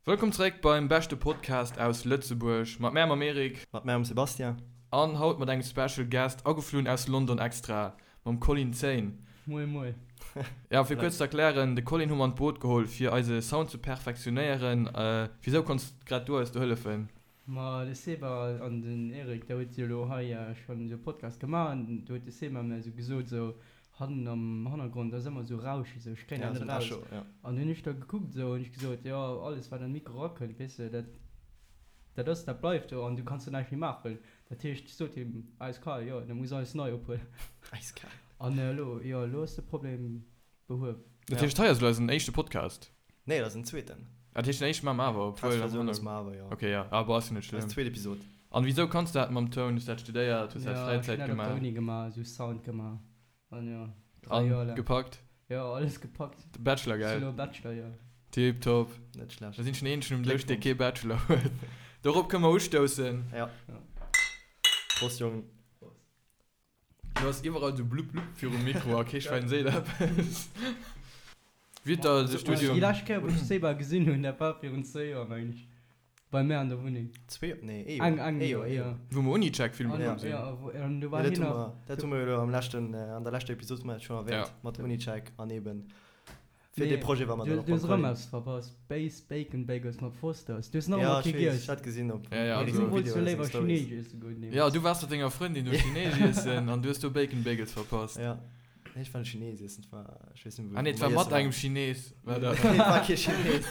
Wëllkomm zeréck beim beschte Podcast aus Lëtzebuerg. Mat mär mam Eric. Mat mär mam Sebastian. An haut mat engem Special Guest, ageflunn aus London extra, mam Colin Zein. Moie moie. Ja, fir kuerz ze erklären, de Colin hu mer an d'Boot geholl fir eise Sound ze perfektionéieren. Wisou konns grad du eis do hëllefen? Ma de Seba an den Eric, der huet jo elo hei schonn esou e Podcast gemaach an do huet de Seba mir esou gesot, esou hannen am Hannergrond ass ëmmer esou Rauschen, esou ech kréien dat net eraus. An hunn ech da gekuckt esou an ech gesot, jo alles wat an de Mikro erakënnt, weess de, dat dat ass, dat bleift do an du kanns do näischt méi maachen. Dat heescht, ech sot him eiskal, jo da muss alles nei ophuelen. Eiskal. An elo, jo elo ass de Problem behuewen. Dat heescht, hei ass elo eisen éischte Podcast? Nee, dat ass den zweeten. Dat heescht, den éischte maache mer awer, obwuel. Testversioun ass mer awer, jo. Ok, jo, awer ass jo net schlëmm. Eis zweet Episod. An wisou kanns du dat mam Toun? Hues du dat studéiert? Hues du dat Ja, ech hunn Fräizäit dat op der gemaach? Uni gemaach, esou Sound gemaach. An jo, 3 Joer An laang. gepackt? Jo, alles gepackt. De Bachelor, Ech gell? sinn elo Bachelor, jo. Tiptop. Net schlecht. Da sinn ech den eenzegen um Dësch, dee Gléckwonsch. kee Bachelor huet. Dorop kënne mer ustoussen. Ja. Ja. Prost, Jongen. Prost. Du has iwwerall sou blupp blupp virum Mikro a kee Schwäin seet eppes. Wéi huet der de Studium. Déi lescht Kéier wou ech Seba gesinn hunn, dat war virun zwéi Joer mengen ech, bei mär an der Wunneng. Zwee, nee ee Joer. Eng, eng Ee Joer, Joer, ee jo. Joer. Wou mer Unicheck filme An, komm sinn. jo, wou, an do Jo, war dat hien hu nach. mer, dat hu mer jo elo am leschten, an der leschter Episod hu mer dat schonn erwähnt, Ja. mat Unicheck an eben Fir Nee, dee Projet war mer du, dann och du beim hues erëm Colin. eppes verpasst. Base Bacon Bagels mat Fosters. Du hues nach Ja, ëmmer ech kee weess, giess. ech hat gesinn op Ja, ja, Eric also. Du sengem wollts Video jo oder seng léiwer Stories. Chineesch iesse goen Ja, deemools. du waars mat denger Frëndin do Chineesch iessen an du hues do Bacon Bagels verpasst. Ja, nee, ech war net Chinees iessen, et war, ech weess net méi, Ah nee, et wou war mer mat iessen engem waren. Chinees, war dat. Nee, et war kee Chinees.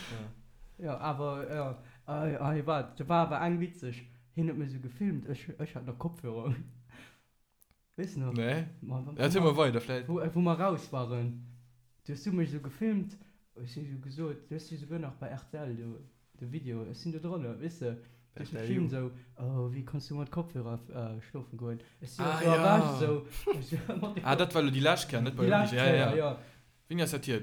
Ja. Jo, awer, jo, ah, waart, do war awer eng witzeg. Hien huet mech esou gefilmt, ech, ech hat nach Kopfhörer un. Weess nach? Nee. Ma, wa, Erzähl mol weider, vläit. Wou, wou mer raus waren, du hues du mech esou gefilmt, ech hu sou gesot, du hues jo souguer nach bei rtl do de Video, ech sinn do drënner, weess de, du hues mech RTL gefilmt Ju. esou, oh wéi kanns du mat Kopfhörer schlofen goen? Ech si jo Ah esou erwächt ja. esou, ech si mat de Ah, dat war elo déi lescht Kéier, net bei Déi Uni. lescht Ja, ja, Kéier, ja. jo. Wéini ass dat hier?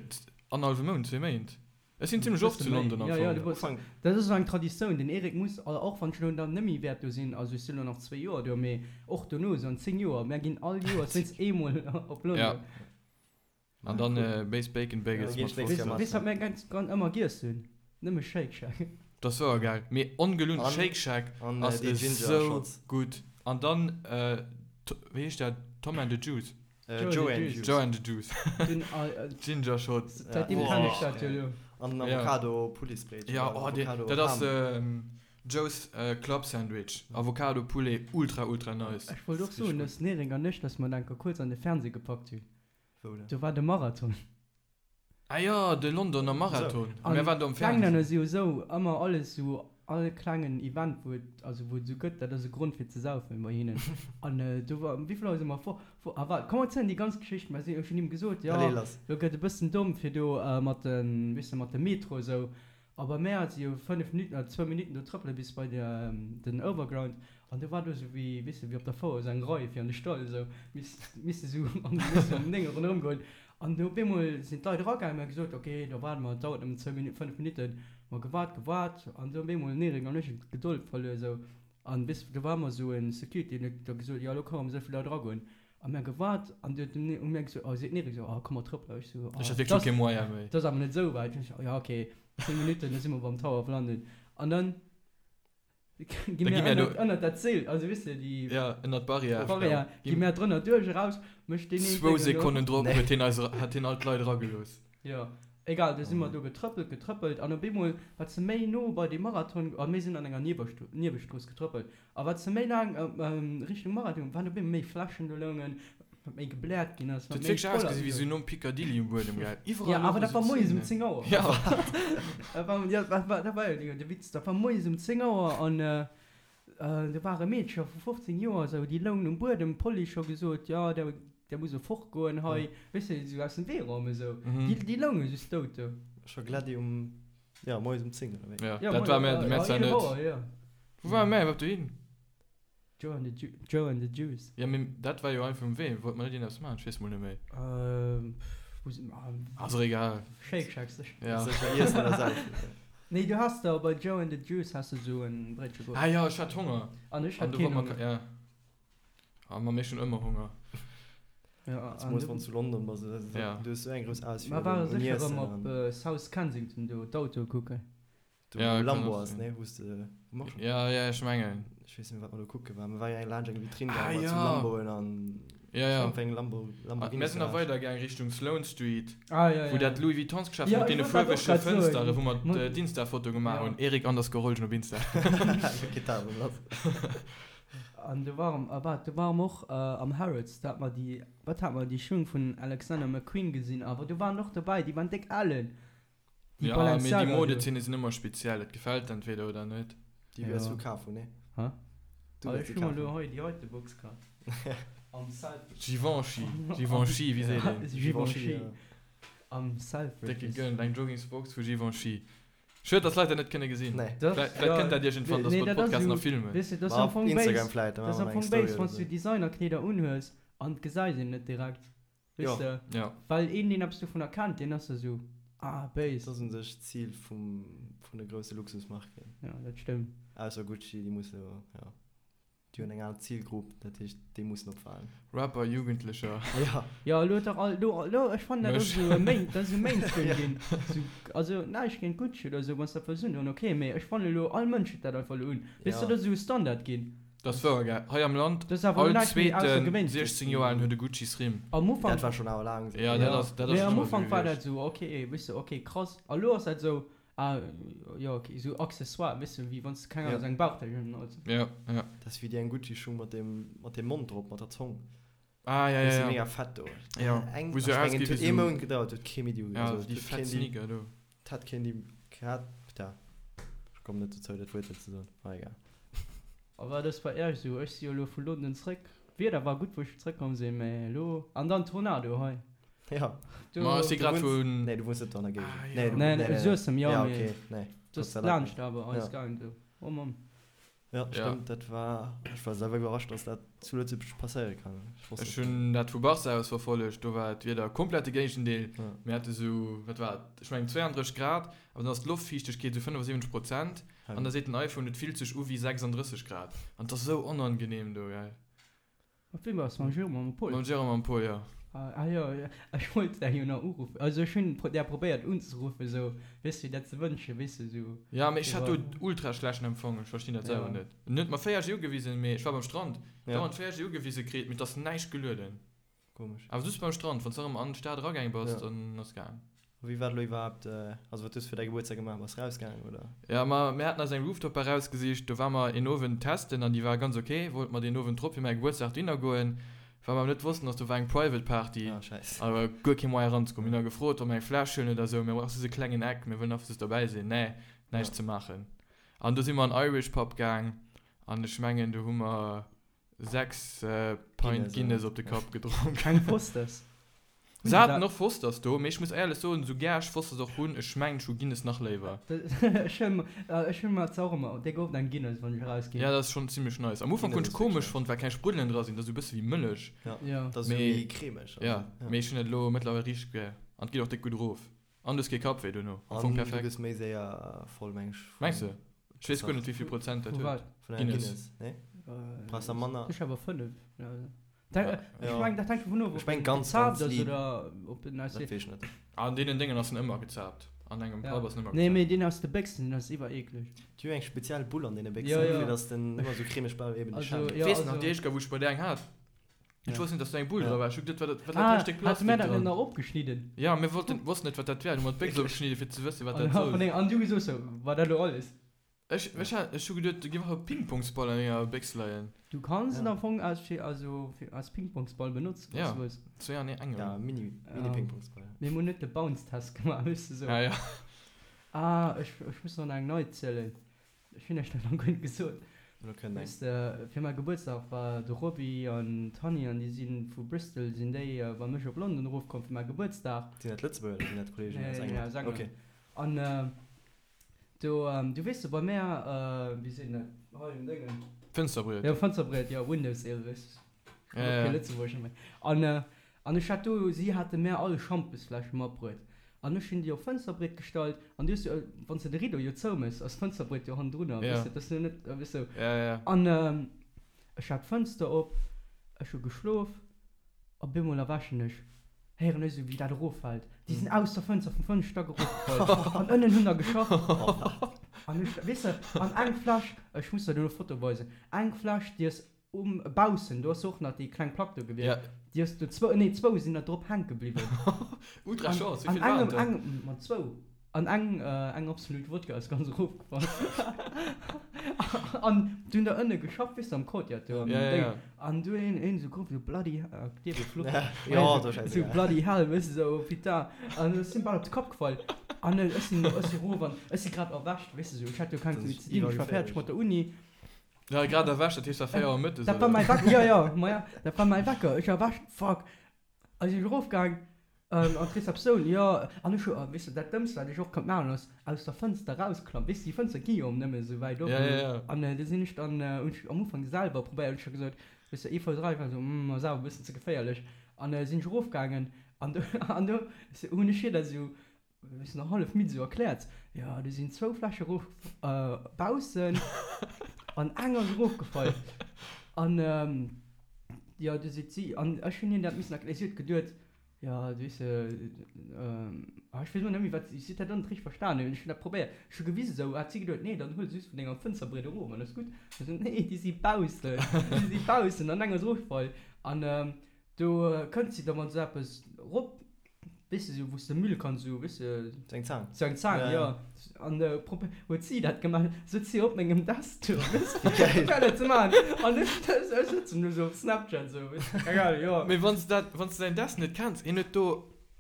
Annerhallwe Mount, zwee Méint? Ech sinn zimlech oft zu London am Ja, ja, Fong. du bass, dat ass esou eng Traditioun. Den Eric muss, och wann ech elo dann net méi wäert do sinn, also ech sinn elo nach zwéi Joer do, mee och dono, esou an 10 Joer, mär ginn all Joers wéinst eemol op London. Ja. An dann Base Bacon Bagels mat Weess, weess wat mär ganz, ganz ëmmer giess hunn? Nëmme Shake Shack. Dat ass wouer gäil. Mee ongelunn, Shake Shack ass esou gutt. An dann, wéi heescht dat, Tom and the Juice? Joe and the Juice. Joe and the Juice. Ginger Shots. Säitdeem kennen ech dat jo elo. An den Avocado Pouletbréitchen. Ja, oh, dee, dat ass Joe's Club Sandwich. Avocado Poulet, ultra ultra nice. Ech wollt och soen, dass den Eric an ech, dass mer enker kuerz an de Fernseh gepackt hunn. Wou denn? Do war de Marathon. Ah jo, de Londoner Marathon. An Mir waren do am d'Englänner Fernsehen. si jo esou, ëmmer alles esou, all klengen Event wou et, also wou et esou gëtt, dat ass e Grond fir ze saufen bei hinnen. An do war, wéi vill Auer si mer fort, fort, ah waart, komm erzielen déi ganz Geschicht, mer sinn, ech hunn him gesot, jo, Allez lass. lo gëtt e bëssen domm fir do mat de, weess de, mat dem Metro esou. A bei mär si jo 5 Minutten oder zwou Minutten do trëppele bis bei den Overground an do war do esou wéi, weess de, wéi op der Fouer esou eng Rei fir an de Stall esou, misst misste esou an misste um 9 ronderëm goen. An do op eemol sinn d'Leit eragaangen, mir hu gesot, ok, da waarde mer, et dauert nëmmen zwou Minutten, 5 Minutten. Mer gewaart, gewaart an do op eemol den Eric an ech hunn d'Gedold verluer esou an weess de, do war ëmmer esou e Security, deen huet da gesot, jo elo ka rëm esou vill Leit eragoen. A mir gewaart an du huet den hu mir gesot, oh seet den Eric esou, oh komm mer trëppelen. Ech sou, oh Ech hat wierklech scho kee Moyen méi. dat ass awer net esou wäit. Ech sou, ja ok, 10 Minutten, da si mer beim Tower of London. An dann gi Da mir gi mir do. ënnert, ënnert dat Zeel, also weess de déi Ja, ënnert d'Barrière. Barrière, gi mir drënner duerch, eraus, mécht deen een Zwou Déngen do. Sekonnen drop huet hien eis, hat hien all d'Leit eragelooss. Jo, egal, du si mer do getrëppelt, getrëppelt an op eemol, wat se méi no bei dee Marathon, a mir sinn an enger Niewestrooss getrëppelt, a wat se méi laang Richtung Marathon, waren op eemol méi Fläschen do loungen, wat méi gebläert ginn ass, Dat wat huet méi wierklech voll ausgesi wéi sou nom Piccadilly um Buedem, gell? Jo, Iwwerall awer louche dat war sou moies um Zenen. 10 Auer. Jo. Dat war, jo, dat war, dat war jo de Witz, dat war moies um 10 Auer an Do ware Meedcher vu 15 Joer esou, déi loungen um Buedem, d'Police scho gesot, jo, der, der muss elo fortgoen hei, weess de, esou aus dem Wee räumen esou. Déi, déi lounge just dout do. Scho glat um, jo, moies um 10 oder wéi? Jo, dat war mär, mär zwar net. Wou ware mär iwwerhaapt dohin? Joe and the, Joe and the Juice. Jo, mee dat war jo einfach um Wee, wollte mer net iergendeppes maachen? Ech weess mol net méi. Wou si mer? Ass och egal. Shake Shack sécher. Ja. Sécher iessen oder saufen. Nee, du has der bei Joe and the Juice has de sou en Bréitche geholl. Ah jo, ech hat Honger. An ech An hat du keen wollt mer Honger. Ja. Ah, ma mir hunn ëmmer Honger. Ja, Zemools wann s du London bass, du hues esou eng grouss Auswiel Mer ware un sécher Iessen erëm op an. South Kensington do d'Autoe kucken. Do Ja, wou kann Lambo och ass, sinn. ne? Wou s de, wou mer schon. Ja, ja, ech mengen. Ech weess net méi wat mer do kucke waren. Mer ware jo eng laanscht eng Vitrine Ah, gaangen mat sou ja. Lamboen an Ja, ja. iergendwéi eng Lambo, Ah, Lamborghini mir sinn nach Garage. weider gaang Richtung Sloane Street, Ah, ja, wou ja. dat Louis Vuittonsgeschäft Ja, mat ech deene wollt dat och fuerwege grad soen. Fënsteren, wou mer Mat- d'Insta-Foto gemaach Ja. hunn. Eric underscore Rolgen op Insta. Geet dat erëm lass. An do ware mer, ah, do ware mer och am Harrods, do hat mer déi, wat hat mer, déi Schung vun Alexander McQueen gesinn, awer do waren och dobäi, déi waren déck alen. Déi Ja, mee déi Balenciaga do. Modezeene sinn ëmmer speziell, et gefält entweder oder net. Déi wäers du kaf hunn, nee? Hä? Du Ah, wäers ech déi hu mer kaf elo hunn. hei déi heite Box kaf. Am Selfridges. Givenchy, Givenchy, wéi seet een? Givenchy, ja. Am Selfridges. Décke gëllen, eng Joggingsbox vu Givenchy. Schued, dass Leit dat net kënne gesinn. Nee. Dat, Vläicht ja, kënnt dat iergendwann, dass nee, mer de dat ass Podcast esou, nach filmen. weess de, dat ass Ma am op Fong Instagram béis, vläicht, da dat ass maache am mer eng Fong Story béis, oder wann s du sou. Designerkleeder unhues an et gesäit een net direkt. Jo. Weess de? Ja. Well een, deen eppes dovunner kennt, deen ass da sou, ah, béis. Dat ass un sech d'Zil vum, vun de grousse Luxusmarken. Ja, dat stëmmt. Ausser Gucci, déi musse jo, ja, déi hunn eng aner Zilgrupp, dat heescht, déi mussen opfalen. Rapper, Jugendlecher. Ja. Ja, elo huet dach all, elo, elo, ech fannen, dat ass Mech. esou e Main, dat ass esou Mainstream ginn. Sou, also näischt géint Gucci oder sou, wann s dat wëlls undoen, ok, mee ech fannen elo, all Mënsch huet dat einfach elo un. Weess de, Ja. dat ass esou e Standard ginn. Dat ass wouer, gell? Hei am Land, Dat ass awer all näischt méi zweeten Aussergewéinleches 16 Joer alen huet e Gucci-Srim. Am Ufank. Dat war schonn awer laang esou. Ja, dat ass, dat ass Mee schonn am ëmmer esou Ufank war dat gewiescht. esou, ok, weess de, ok, krass. A lo ass dat esou, ah, jo, ok, esou Accessoire, weess de, wéi wann s de, keng Ahnung, esou eng Bauchtäsch un hues. Ja, ja. Dat ass wéi déi eng Gucci-Schung mat deem, mat deem Mond drop, mat der Zong. Ah, ja, Déi ja, si ja. mega fett do. Ja, Eng, wou se ech mengen, ausgi et huet wéi ee sou. Mount gedauert, huet kee méi déi, Ja, also, déi huet fett keen déi, Sneaker do. 't hat keen déi gehat, putain, ech kommen net dozou, dat Wuert hei ze soen, ma egal. A wat ass bei Iech esou? Ech si jo elo vu London zréck. D'Wieder war gutt wou ech zréckkomm sinn, mä elo, an dann Tornado hei. Ja. Do. Ma ech si Du grad wunns, vun. nee, du wunns net do an der Géigend. Ah, Nee, jo. du, Nee, nee, nee, Suessem, jo, ja, mee okay, nee, dat Gott ass sei Dank laanscht net. awer eis Ja. gaang do. Oh Mann. Ja, Ja. stëmmt, dat war, ech war selwer iwwerrascht, dass dat zu Lëtzebuerg passéiere kann. Ech wosst Ech dat net. hunn dat vu Barca aus verfollegt, do war d'Wieder komplett de Géigendeel. Ja. Mir hate sou, wat war et, ech mengen 32 Grad, awer dann ass d'Loftfiichtegkeet sou 75 Prozent an da seet den iPhone, et fillt sech u wéi 36 Grad an et ass sou onangenehm do, gell. Mat wem war's? Mam Jérôme a mam Paul? Mam Jérôme a mam Paul, jo. Ah jo, ech wollt där jo nach uruffen. Also ech hunn där probéiert unzeruffen, sou, weess de, dat ze wënschen, weess de, sou. Ja, mee ech hat do ultra schlechten Empfang, ech verstinn dat selwer net. En huet mer 4G ugewisen, mee ech war beim Strand, dauernd 4G ugewise kritt, mee et ass näischt gelueden. Komesch. Awer just beim Strand, wann s de erëm an d'Stad eragaang bass, dann ass gaang. A wéi war et elo iwwerhaapt, also wat hues du fir däi Gebuertsdag gemaach? Bass rausgaangen oder? Ja, ma mir haten eis eng Rooftop Bar rausgesicht, do war mer een Owend testen an déi war ganz ok, wollte mer deen Owend drop fir mäi Gebuertsdag dohinner goen, wat mer awer net wossten ass, do war eng Private Party Ah, scheiss. a war guer kee Moyen eranzekommen. Mir hunn da gefrot, ob mer eng Fläsch huelen oder esou, mir brauche just e klengen Eck, mir wëllen einfach just derbäi sinn, nee, näischt ze maachen. An do si mer an Irish Pub gaang an ech mengen do hu mer 6 Pint Guinness op de Kapp gedronk. Keng Fosters? Se haten och Fosters do, mee ech muss éierlech soen, sou gär ech Fosters och hunn, ech mengen ech hu Guinness nach léiwer. Ech hunn mer zwar och ëmmer déck oft eng Guinness wann ech erausginn. Ja, dat ass schonn zimlech nice. Am Ufank hunn ech komesch fonnt, well keng Spruddelen dra sinn, dat ass sou e bësse wéi Mëllech. Ja, dat ass sou méi cremeg. Ja, mee ech hunn et elo mëttlerweil richteg gär an et geet och déck gutt erof. An du hues kee Kappwéi dono. Am Fong An du perfekt. gëss méi séier voll, meng ech. Mengs de? Ech weess guer net wéivill Prozent dat Vu huet. wat? Vun enger Guinness. Guinness, nee? Brauchs der manner. Ech awer 5. Ech meng dat hänkt dovun of, Ech ob meng en ganz, gezaapt ganz ass liit. oder ob en aus Dat weess ech net. An deenen Déngen ass en ëmmer gezaapt. An engem Ja. Pub ass en ëmmer Nee, gezaapt. mee deen aus de Béchsen, deen ass iwwer eekleg. Déi hu eng speziell Bull an deene Béchsen, Ja, ja. fir dass den ëmmer sou cremeg bleift, eben de Also, Schaum. ja, Weess nach also. déi éischt Kéier wou ech bei där eng hat. Ech wosst net, dass do eng Bull dra war. Ech hu geduet, wat dat, wat dat Ah, hei Stéck hate Plastik mär dat net dran. nach opgeschnidden? Ja, mir wollten, wossten net, wat dat wär. Du hu mer d'Béchs opgeschnidden, fir ze wëssen, wat dat An, soll. an du gesot sou, war dat elo alles? Ech, ech hat, ech hu geduet, do géif einfach e Pingpongsball an enger Béchs leien. Du kanns en Ja. am Fong als, fir, also, fir, als Pingpongsball benotzen, wann Ja. s du wëlls. Zwee an engem. Ja, Mini, Mini-Pingpongsball. Mee mir hunn net de Bounce-Test gemaach, weess de sou. Ja, ja. Ah, ech, ech muss nach eng nei zielen. Ech hunn iech dat nach guer net gesot. Elo kënnt eng. Weess de, fir mäi Gebuertsdag war de Roby an d'Hanni an déi si vu Bristol sinn déi bei mech op London erofkomm fir mäi Gebuertsdag. Sinn dat Lëtzebuerger oder sinn dat Kolleegen Nee, aus nee, England? aus England. Okay. An do, du weess de, bei mär, wéi seet een dat hei um Déngen? Fënsterbriet. Jo, Fënsterbriet, jo, Windowsill, weess de. Ja, ja. Kee Lëtzebuerger méi. An, an ech hat do, si hate mär all Schampesfläsche matbruet. An ech hunn déi op d'Fënsterbriet gestallt. An du hues jo, wann s de de Rideau jo zoumëss, ass d'Fënsterbriet jo hannendrunner, Ja. weess de, dat ass jo net, weess de. Ja, ja. An ech hat d'Fënster op, ech hu geschlof. Op eemol erwächen ech, héieren ech esou wéi dat eroffält. Déi sinn aus der Fënster vum fënnefte Stack erofgefall an ënnen hunn der geschafft. An ech, weess de, an eng Fläsch, ech muss der duerno Foto weisen, eng Fläsch déi ass um baussen, do ass och nach déi kleng Plack do gewiescht, déi ass do zwou, nee zwou sinn der drop hänke bliwwen. Ultra Chance, wéi vill waren et der? An engem, ma zwou. An eng, eng Absolut Wodka ass ganz erofgefall. An du hunn der ënne geschafft, weess de, am Courtyard do am Déng. An du hunn een esou geruff, esou bloody, dierf ee fluchen? Esou bloody hell, weess de, esou putain. An ech sinn bal op de Kapp gefall. An ech sinn, ech si erof an ech si grad erwächt, weess de, esou, ech hat jo keng méi ze dinn, ech war fäerdeg mat der Uni. Ja, grad erwächt, dat heescht, war 4 Auer mëttes, Dat war mäi Wecker, jo, jo, ma ja, dat war mäi Wecker. Ech erwächt, fuck. A si erofgaang an d'Receptioun, jo, an ech hu, weess de, dat Dëmmst, wat ech och konnt maachen, ass aus der Fënster rausklammen. Weess de, déi Fënster gi jo nëmme esou wäit op. An du sinn ech dann, hunn ech am Ufank selwer probéiert, hunn ech da gesot, weess de, ee Fouss eran, ech war esou, hm, ass awer e bëssen ze geféierlech. An sinn ech erofgaangen an do, an do hunn ech hir dat esou Wéi se nach hallef midd esou erkläert, Jo, do sinn zwou Fläsche erof baussen an eng ass erofgefall. An jo, du seet si, an ech hunn hir dat missen erklären, si huet geduet, jo, weess de, ah ech weess elo net méi wat, si huet dat och net richteg verstanen, ech hunn dat probéiert, ech hu gewisen esou, hat si geduet, nee, dann huel se just vun denger Fënsterbriet erof an ass gutt. Ech sou, nee, déi si baussen, déi si baussen an eng ass erofgefall. An do kënnt si da mat esou eppes erop. Weess de, sou wou s de Müll kanns sou, weess de. Sou eng Zaang. Sou eng Zaang, jo. An huet si dat gemaach, sëtzt si op mengem Desktop, weess de, fir dat ze maachen. An ech, ech sëtzen do sou op Snapchat sou, weess de, keng Ahnung, jo. Mee wann s de dat, wann s de säin Desk net kenns, hien huet do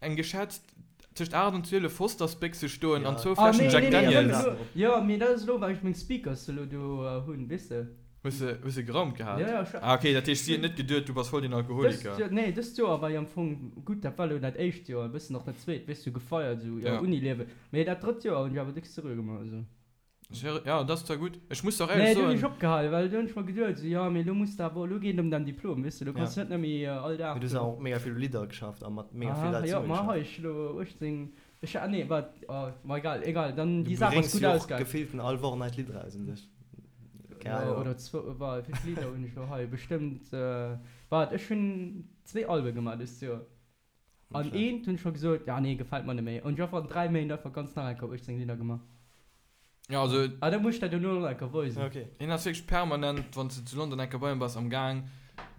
eng geschätzt tëscht 8 an 12 Fostersbéchse stoen an zwou Fläschen Jack Daniels. Jo, mee dat ass elo, well ech meng Speakers elo do hunn, weess de. Hues de, hues de geraumt gehat? Ja, ja, ech. Ah, okay, dat heescht, si huet net geduet, du bass voll den Alkoholiker. Dëst Joer, nee, dëst Joer war jo am Fong gutt, dat war elo dat éischt Joer, e bëssen och dat zweet, weess du, gefeiert, esou, ja, Ja. Uniliewen. Mee dat drëtt Joer hunn ech awer déck seriö gemaach, also. Seri-, ja, dat ass zwar gutt. Ech muss der och Nee, éierlech do hunn ech soen. opgehal, well do hunn ech mer geduet, esou, jo, mee elo muss de awer, elo geet et ëm däin Diplom, weess du, elo kanns Ja. du net méi all Dag Mee du hues do. awer och mega vill u Lidder geschafft a mat mega vill Aha, Leit jo, zesumme ma geschafft. hei, ech elo 18, ech, ah, nee, wat, oh, ma egal, egal, dann Du déi Saach ass bréngs gutt jo och ausgaang. gefillten all Woch neit Lidd eraus un sech. Keine Ja, Ahnung. oder zwou, wa, wéi vill Lidder hunn ech elo hei? Bestëmmt, wat, ech hunn zwee Albe gemaach dëst Joer. Net An schlecht. eent hunn ech scho gesot, ja nee, gefält mer net méi. An ech hu einfach an 3 Méint einfach ganz nach eng Kéier 18 Lidder gemaach. Ja, also. Ah, da muss ech der duerno nach eng Kéier weisen. Okay. Hien ass wierklech permanent, wann s de zu London eng Kéier bei him bass, am Gaang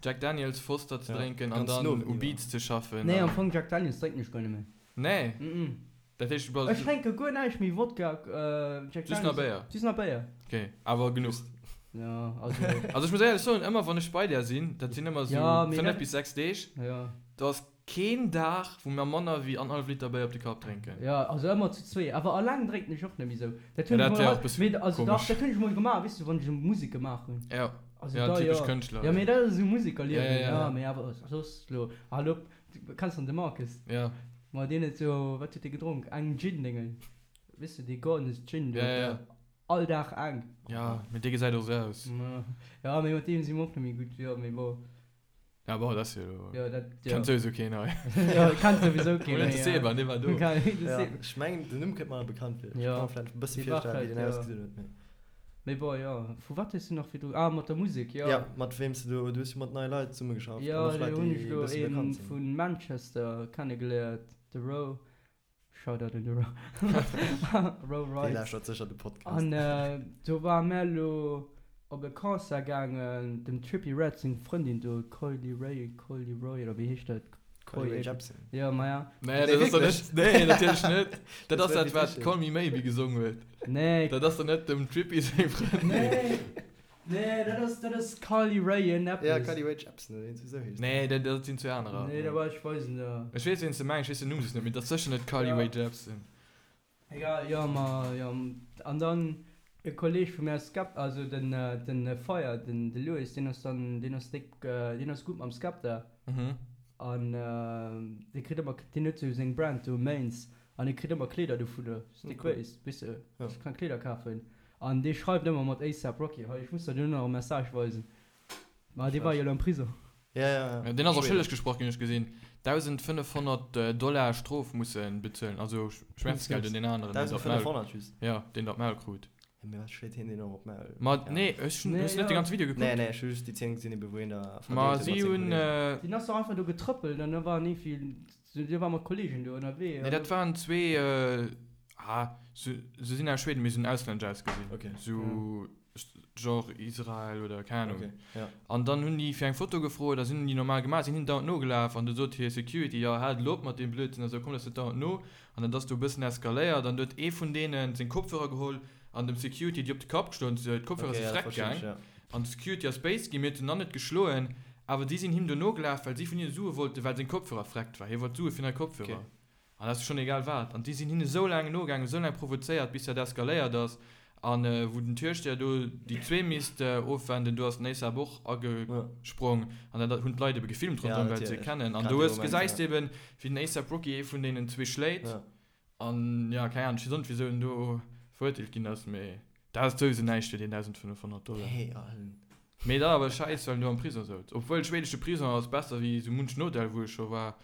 Jack Daniels Foster ze Ja, drénken an ganz dann no u iwwer. Beats ze schaffen. Nee, am An. Fong Jack Daniels drénken ech guer net méi. Nee? Mm-mm. Dat heescht, du bass. Ech drénke guer näischt méi, Wodka, Jack Just nach Daniels. Béier? Just nach Béier. Okay, awer genuch. Ja, also. Also ech muss éierlech soen, ëmmer wann ech bei där sinn, dat sinn ëmmer Ja, sou mee 5 dat. bis 6 Deeg, Ja. do ass keen Dag, wou mer manner wéi annerhallef Liter Béier op de Kapp drénken. Ja, also ëmmer zu zwee. Awer alleng drénken ech och net méi sou. Dat Ja, hunn ech dat mol wär hei, och e bësse mee also dach, komesch. dat hunn ech mol gemaach, weess du, wann ech esou Musek gemaach hunn. Ja, Also ja, da typesch jo. Kënschtler. Ja, mee dat ass esou Ja, Musekerliewen, ja, ja. ja, mee awer soss elo, hal op, du kenns dann de Marcus? Ja. Ma deen huet sou, wat huet dee gedronk? Eng Gin-Déngen, weess du, dee Gordon's Gin do. Ja, ja, ja. All Dag eng. Ja, mee dee gesäit och sou aus. Ja, mee mat deem si mer och net méi gutt, jo, mee bon. Ja, bon, dat ass jo elo. Jo, dat, jo. Kennt souwisou keen hei. Jo, kennt souwisou keen Oder méi, de ja. Seba, dee war do. De Ja, Seb. ech mengen, den Numm kënnt mer bekannt vir. Ech Ja. ka mer vläicht e bësse Dee war virstellen, wéi vläicht, deen ja. ausgesinn huet, mee. Mee bon, jo. Vu wat hues du nach virdru, ah, mat der Musek, jo. Ja, mat weem s du do, du hues jo mat neie Leit zesummegeschafft an Jo, och Leit, do hunn déi ech e elo bësse ee bekannt sinn. vu Manchester kennegeléiert, de Ro. Shoutout un de Ro. Ro Dee Wright. lauschtert sécher de Podcast. An do ware mär elo op e Concert gaangen, dem Trippie Redd seng Frëndin do, Coily Ray, Coily Roy oder wéi heescht dat? Coily Ray Jepsen. Jo, maja. Nee, Nee, dat ass doch wierklech? net, nee, natierlech net. Dat Dat ass wär dat, wat witzeg. Call Me Maybe gesong huet. Nee. Dat ass doch net dem Trippie seng Frëndin. Nee, nee, dat ass, dat ass Carly Rae en eppes. Ja, Carly Rae Jepsen oder iergendwéi sou heescht se. Nee, dat, dat sinn zwee anerer. Nee, da war ech weisen der. Ech weess, ween s de mengs, ech weess den Numm just net, mee dat ass sécher net Carly Ja. Rae Jepsen. Egal, jo, ma jo. An dann e Kolleg vu mär, Skep, also den, den Fire, den, de Louis, deen ass dann, deen ass déck, deen ass gutt mam Skepta. Mhm. An dee kritt ëmmer, deen huet sou seng Brand do, Mains, an dee kritt ëmmer Kleeder dovunner. Ass déck Cool. Base, weess de, Ja. ech kann Kleeder kafen. An dee schreift ëmmer mat ASAP Rocky. Hei, ech muss der duerno nach e Message weisen. Ma dee war jo elo am Prisong. Ja, ja, ja. Ja, deen ass och schëlleg gesprach ginn, hunn ech gesinn. 1.500 Dollar Strof musse bezuelen, also Schmerzgeld un deen aneren, deen dat Maul, 1.500 just? ja, deen dat Maul krut. Ja, mee wat schléit hien deen och op d'Maul? Ma nee, ech hunn, hues du net de ganze Video gekuckt? Nee, nee, ech hu just déi Zeen gesinn, ebe wou hien da Ma verdeelt huet si mat senge hunn. Kollegen. Deen ass doch einfach do getrëppelt an da waren iergendwéi, dee war mat Kollegen do ënnerwee. Nee, dat waren zwee, ah, se sinn aus Schweden, mee se hunn auslännesch ausgesinn. Okay. Sou genre Israel oder keng Ahnung. Okay, ja. An dann hunn déi fir eng Foto gefrot a sinn hunn déi normal gemaach, sinn hinnen dauernd nogelaf an du sot hir Security, jo haalt elo op mat deem Blödsinn a sou, kommt eis net dauernd no. An dat ass du e bëssen eskaléiert an du huet ee vun deenen seng Kopfhörer geholl an dem Security déi op de Kapp geschloen, d'Kopfhörer Okay, si ja, dat freck verstinn ech, gaang ja. an de Security ass béis ginn, mee huet en dann net geschloen, awer déi sinn him do nogelaf, well si vun hinne Sue wollten, well seng Kopfhörer freckt war, hie wollt Sue fir nei Kopfhörer. Okay. An dat ass schonn egal wat. An déi sinn hinne sou laang nogaangen, sou laang provozéiert, bis dat eskaléiert ass. An wou den Türsteher do déi zwee misst ofwenden, do ass den ASAP och agesprong. An dat hunn d'Leit ebe gefilmt ronderëm, well se e kennen. An do hues, gesäis de eben, wéi den ASAP Rocky ee vun deenen zwee schléit. An jo, keng Ahnung, ech weess och net, wisou en do verurteelt ginn ass, mee dat ass souwisou näischt fir deen 1.500 Dollar. Mee dat awer schäiss, well en do am Prisong souz. Obwuel, schweedesche Prisong ass besser wéi sou munchen Hotel, wou ech scho war.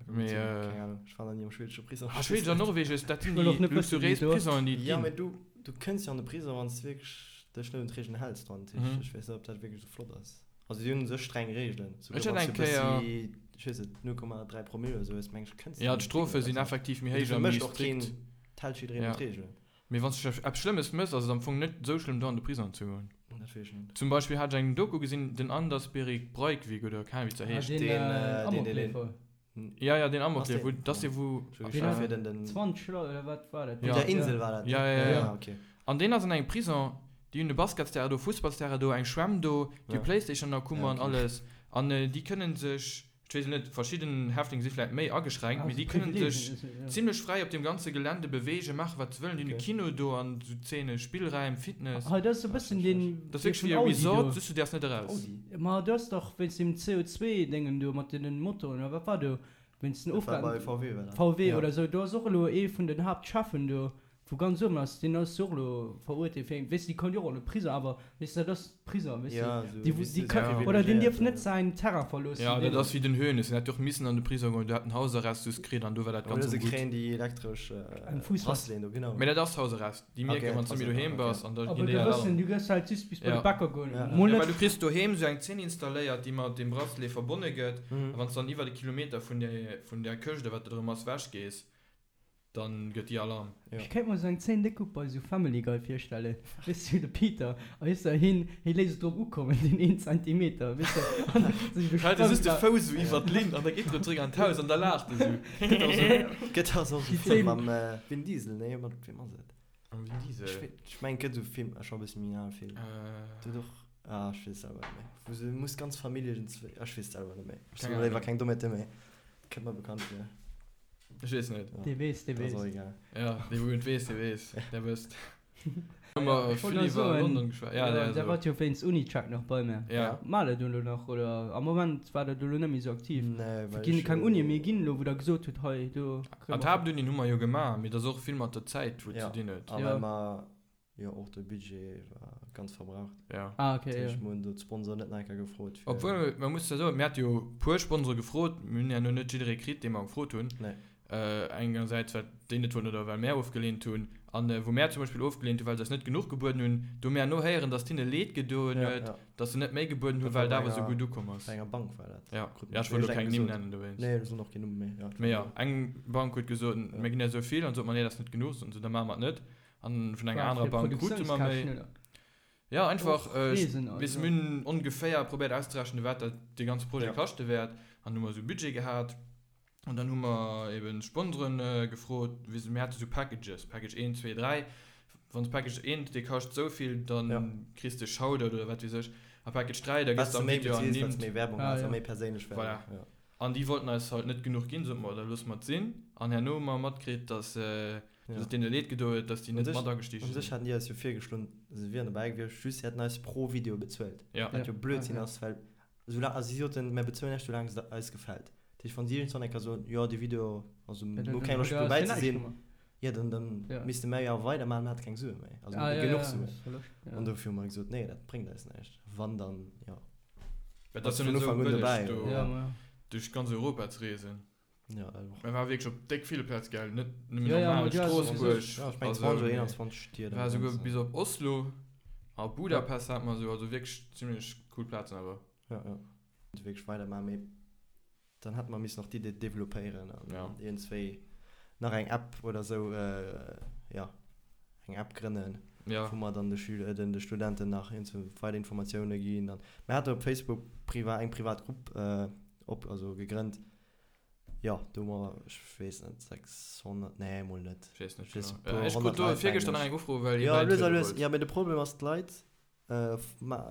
Mee, äh, Keng Ahnung, ech war nach ni am schwedesche Prisong. Ah, Schweden an Norwegen, dat sinn Ech wëll och déi net wëssen, wéi luxuriéis et do ass. Prisonen, déi et Ja, ginn. mee du, du kënns jo an de Prisong, wann s de wierklech dech net un d'Reegelen häls dran. Dat heescht, Mhm. ech weess net, ob dat wierklech esou flott ass. Also si hunn u sech streng Reegelen. Ech Souguer hat wann s eng du e Kéier. bëssi, ech weess net, 0,3 Promille oder sou hues, meng ech, kënns du Ja, an de d'Strofe Prisong. sinn Also, effektiv méi mee héich dofir a méi mécht och keen, strikt. d'hält jiddereen Ja. un d'Reegelen. Mee wann s du eppes Schlëmmes mëss, ass et am Fong net esou schlëmm, do an de Prisong ze goen. Dat weess ech net. Zum Beispill hat ech eng Doku gesinn, den Anders Behring Breivik oder keng Ahnung, wéi se Ah, heescht. deen, Deen, äh, äh, deen, deen, deen. Amokleefer. Ja, ja, den Ass Amokleef, deen? wou, dat ass dee wou. Ech Deen war hat fir den, den. 20 Leit oder wat war dat? Ja. Op der Insel war dat, ne? Ja, ja, ja, ja. Ja, okay. An deen ass an engem Prison, déi hunn e Basketsterrain do, Fussballsterrain do, eng Schwämm do, déi hu Ja. Playstation an der Kummer Ja, an okay. alles. An déi kënnen sech, ech weess net, verschidden Häftlinge si vläit méi ageschränkt, Ah, mee sou déi kënnen Privileegien, sech ja. zimlech fräi op deem ganze Gelände beweegen, maachen wat se wëllen. Déi hunn e Okay. Kino do an sou Zeene, Spillräim, Fitness. Hei, dat ass e bëssen deen Dat ass dee wierklech vun wéi e Audi Resort, do. just du däerfs net eraus. Audi? Ma do ass dach wéinst deem CO2-Déngen do mat deenen Motoren oder wat war do, wéinst den Dat war bei Ofgasen, VW war dat. VW Ja. oder sou, do ass och elo ee vun den Haaptcheffen do, wou ganz uewen ass, deen ass jo och elo verurteelt fir eng, weess de, déi konnt jo och an de Prison, awer weess de, dat ass Prison, weess de, Ja, sou, déi, weess déi de, ka, sou oder deen dierf privilegiéiert, net säin Terrain verloossen, Ja, dat deen. ass wéi den Hoeneß, deen hätt jo och missen an de Prison goen, do hat en Hausarrest just kritt an do war dat Oder ganz se gutt. kréien déi elektresch Eng Fuuss. Braceleten do, genau. Mee dat ass Hausarrest, déi mierken, Okay, wann s du méi doheem okay. bass an da Aber ginn du déi wëssen, Alarm. du gëss halt just bis bei de Ja. Bäcker goen, Ja. mol Ja, net. well du kriss doheem sou eng Zeen installéiert, déi mat deem Bracelet verbonne gëtt, Mhm. a wann s du dann iwwert e Kilometer vun där, vun där Këscht oder wat dat erëm ass, wech gees, Dann gëtt déi Alarm. Ja. Ech kéint mer sou eng Zeen déck gutt bei sou Family Guy virstellen, weess du, de Peter, a weess de, hien, hie léisst et drop ukommen, deen een Zentimeter, weess de, an sech Hält e just de besprëmmt. Fouss esou iwwer d'Linn an da geet en erëm zréck an d'Haus an da laacht e sou. Gëtt och sou, gëtt och sou Déi e Film Zeen. mam Vin Diesel, nee, mat weem ass et? Mam Vin Diesel? Ech wee, ech mengen, et gëtt sou e Film, ass scho e bësse méi en ale Film. Äh. Do huet och, ah, ech weess et selwer net méi, wou se muss ganz Famillje iergendzwéi, ech weess et selwer net méi. Ech Keng soen léiwer Ahnung. keng Dommheete méi. Kënnt mer bekannt vir. Ech weess net. Dee weess, dee Dat ass weess. och egal. Ja, dee wou et weess, dee weess. Der wësst. Hu mer Ech wollt vill nach iwwer soen, London geschwat. Ja, ja, der der so. wart jo wéinst Unicheck nach bei mir. Ja. Maacht der do elo nach oder am Moment war der do elo net méi esou aktiv? Nee, well Ginn ech keng jo. Unie méi ginn elo, wou der gesot hutt, hei do kréie An mer. d'Haaptunien hu mer jo gemaach, mee dat ass och vill mat der Zäit wou et Ja, ze dinn huet. a Ja. well mer jo och de Budget war ganz verbraucht. Ja. Ah, okay, Dat ja. heescht, mer hunn do d'Sponsoren net nach eng Kéier gefrot fir. Obwuel, man muss ja soen, mir hate jo puer Sponsore gefrot, mir hunn herno net jidderee kritt, dee mer gefrot hunn. Nee. Engersäits well déi net wollten oder well mär ofgeleent hunn. An wou mär zum Beispill ofgeleent hunn, well se eis net genuch gebueden hunn, do hu mir herno héieren, datt hinne leed gedoen Ja, huet, ja. datt se net méi gebueden hunn, Dat war well et bei awer esou enger, gutt ukomm ass. bei enger Bank war dat. Ja, Krut ja, mer ech wollt elo iergendeng keng Nimm gesot. nennen dowéinst. Nee, soen och keen Numm méi, ja. Mee ja, eng Bank huet gesot, Ja. mir ginn eis esou vill, an sot mer, nee, dat ass net genuch, soten se, da maache mer et net. An vun enger War anerer fir Bank krute mer méi. Produktiounskäschten, oder? Ja, einfach, Och äh, Reesen, weess, also. mir hunn ongeféier probéiert auszerechnen, wat dat dee ganze Projet Ja. kaschte wäert. An hu mer esou e Budget gehat. An dann hu mer eben Sponsoren gefrot, weess, mir hate sou Packages, Package 1, 2, 3. Wann s Package 1, dee kascht esou vill, dann Ja. kriss de Shoutout oder wat weess ech. A Package 3, da Wat gëss s de de am méi Video beziils, wat s ernimmt. méi Werbung Ah, has a ja. méi perséinlech Werbung. Voilà. Ja. An déi wollten eis halt net genuch ginn, sote mer, da loosse mer et sinn. An herno hu mer matkritt, dass, Ja. Dass et deene leed gedoen huet, dass déi Un net sech, mat agestigen un sech sinn. haten déi eis jo virgeschloen, se wieren dobäi gewiescht, just se hätten eis pro Video bezuelt. Ja. Wat jo Ja, Blödsinn okay. ass, well soulaang, also si soten, mär bezuelen iech soulaang et eis gefält. Dat heescht, wann si iergendwann eng Kéier soen, jo dee Video, also Ja, mir dann hu keng huet Loscht der dobäi eis ze jo näischt sinn, gemaach. jo dann, dann Ja. misste mär jo weidermaachen, mir hate keng Sue méi, also Ah, ja, genuch ja, Suen. ass Verloscht, ja. An dofir hu mer gesot, nee, dat bréngt eis näischt. Wann dann, jo, Well et bass ass jo vun net esou Ufank un bëlleg dobäi. do Ja, ma ja. duerch ganz Europa ze reesen. Ja, dat och. Mir war wierklech op déck ville Plaze gell, net nëmmen Ja, ja, normal ma du hast Stroossbuerg Ja, ech meng a sou, 20 oder mee 21 Stied am war souguer Ganzen. bis op Oslo a Budapest hat mer sou, also wierklech zimmlech cool Plazen awer. Ja, ja. Wierklech weidermachen, mee dann hätte mer missen nach d'Idee developpéieren an Ja. iergendzwéi nach eng App oder sou, ja, eng App grënnen, Ja. wou mer dann de Schüler, den de Studenten nach iergendzwou weider Informatioune ginn. An mer hate op Facebook priva eng privat Grupp op, also gegrënnt, jo, do hu mer, ech weess net, 600, nee, mol net, Ech weess net ech weess genau. e puer Ech krut 100 do Leit, virgëschter mengen nach ech. eng Ufro, well ee Jo, lues a bäitriede lues, wollt. jo, mee de Problem ass, d'Leit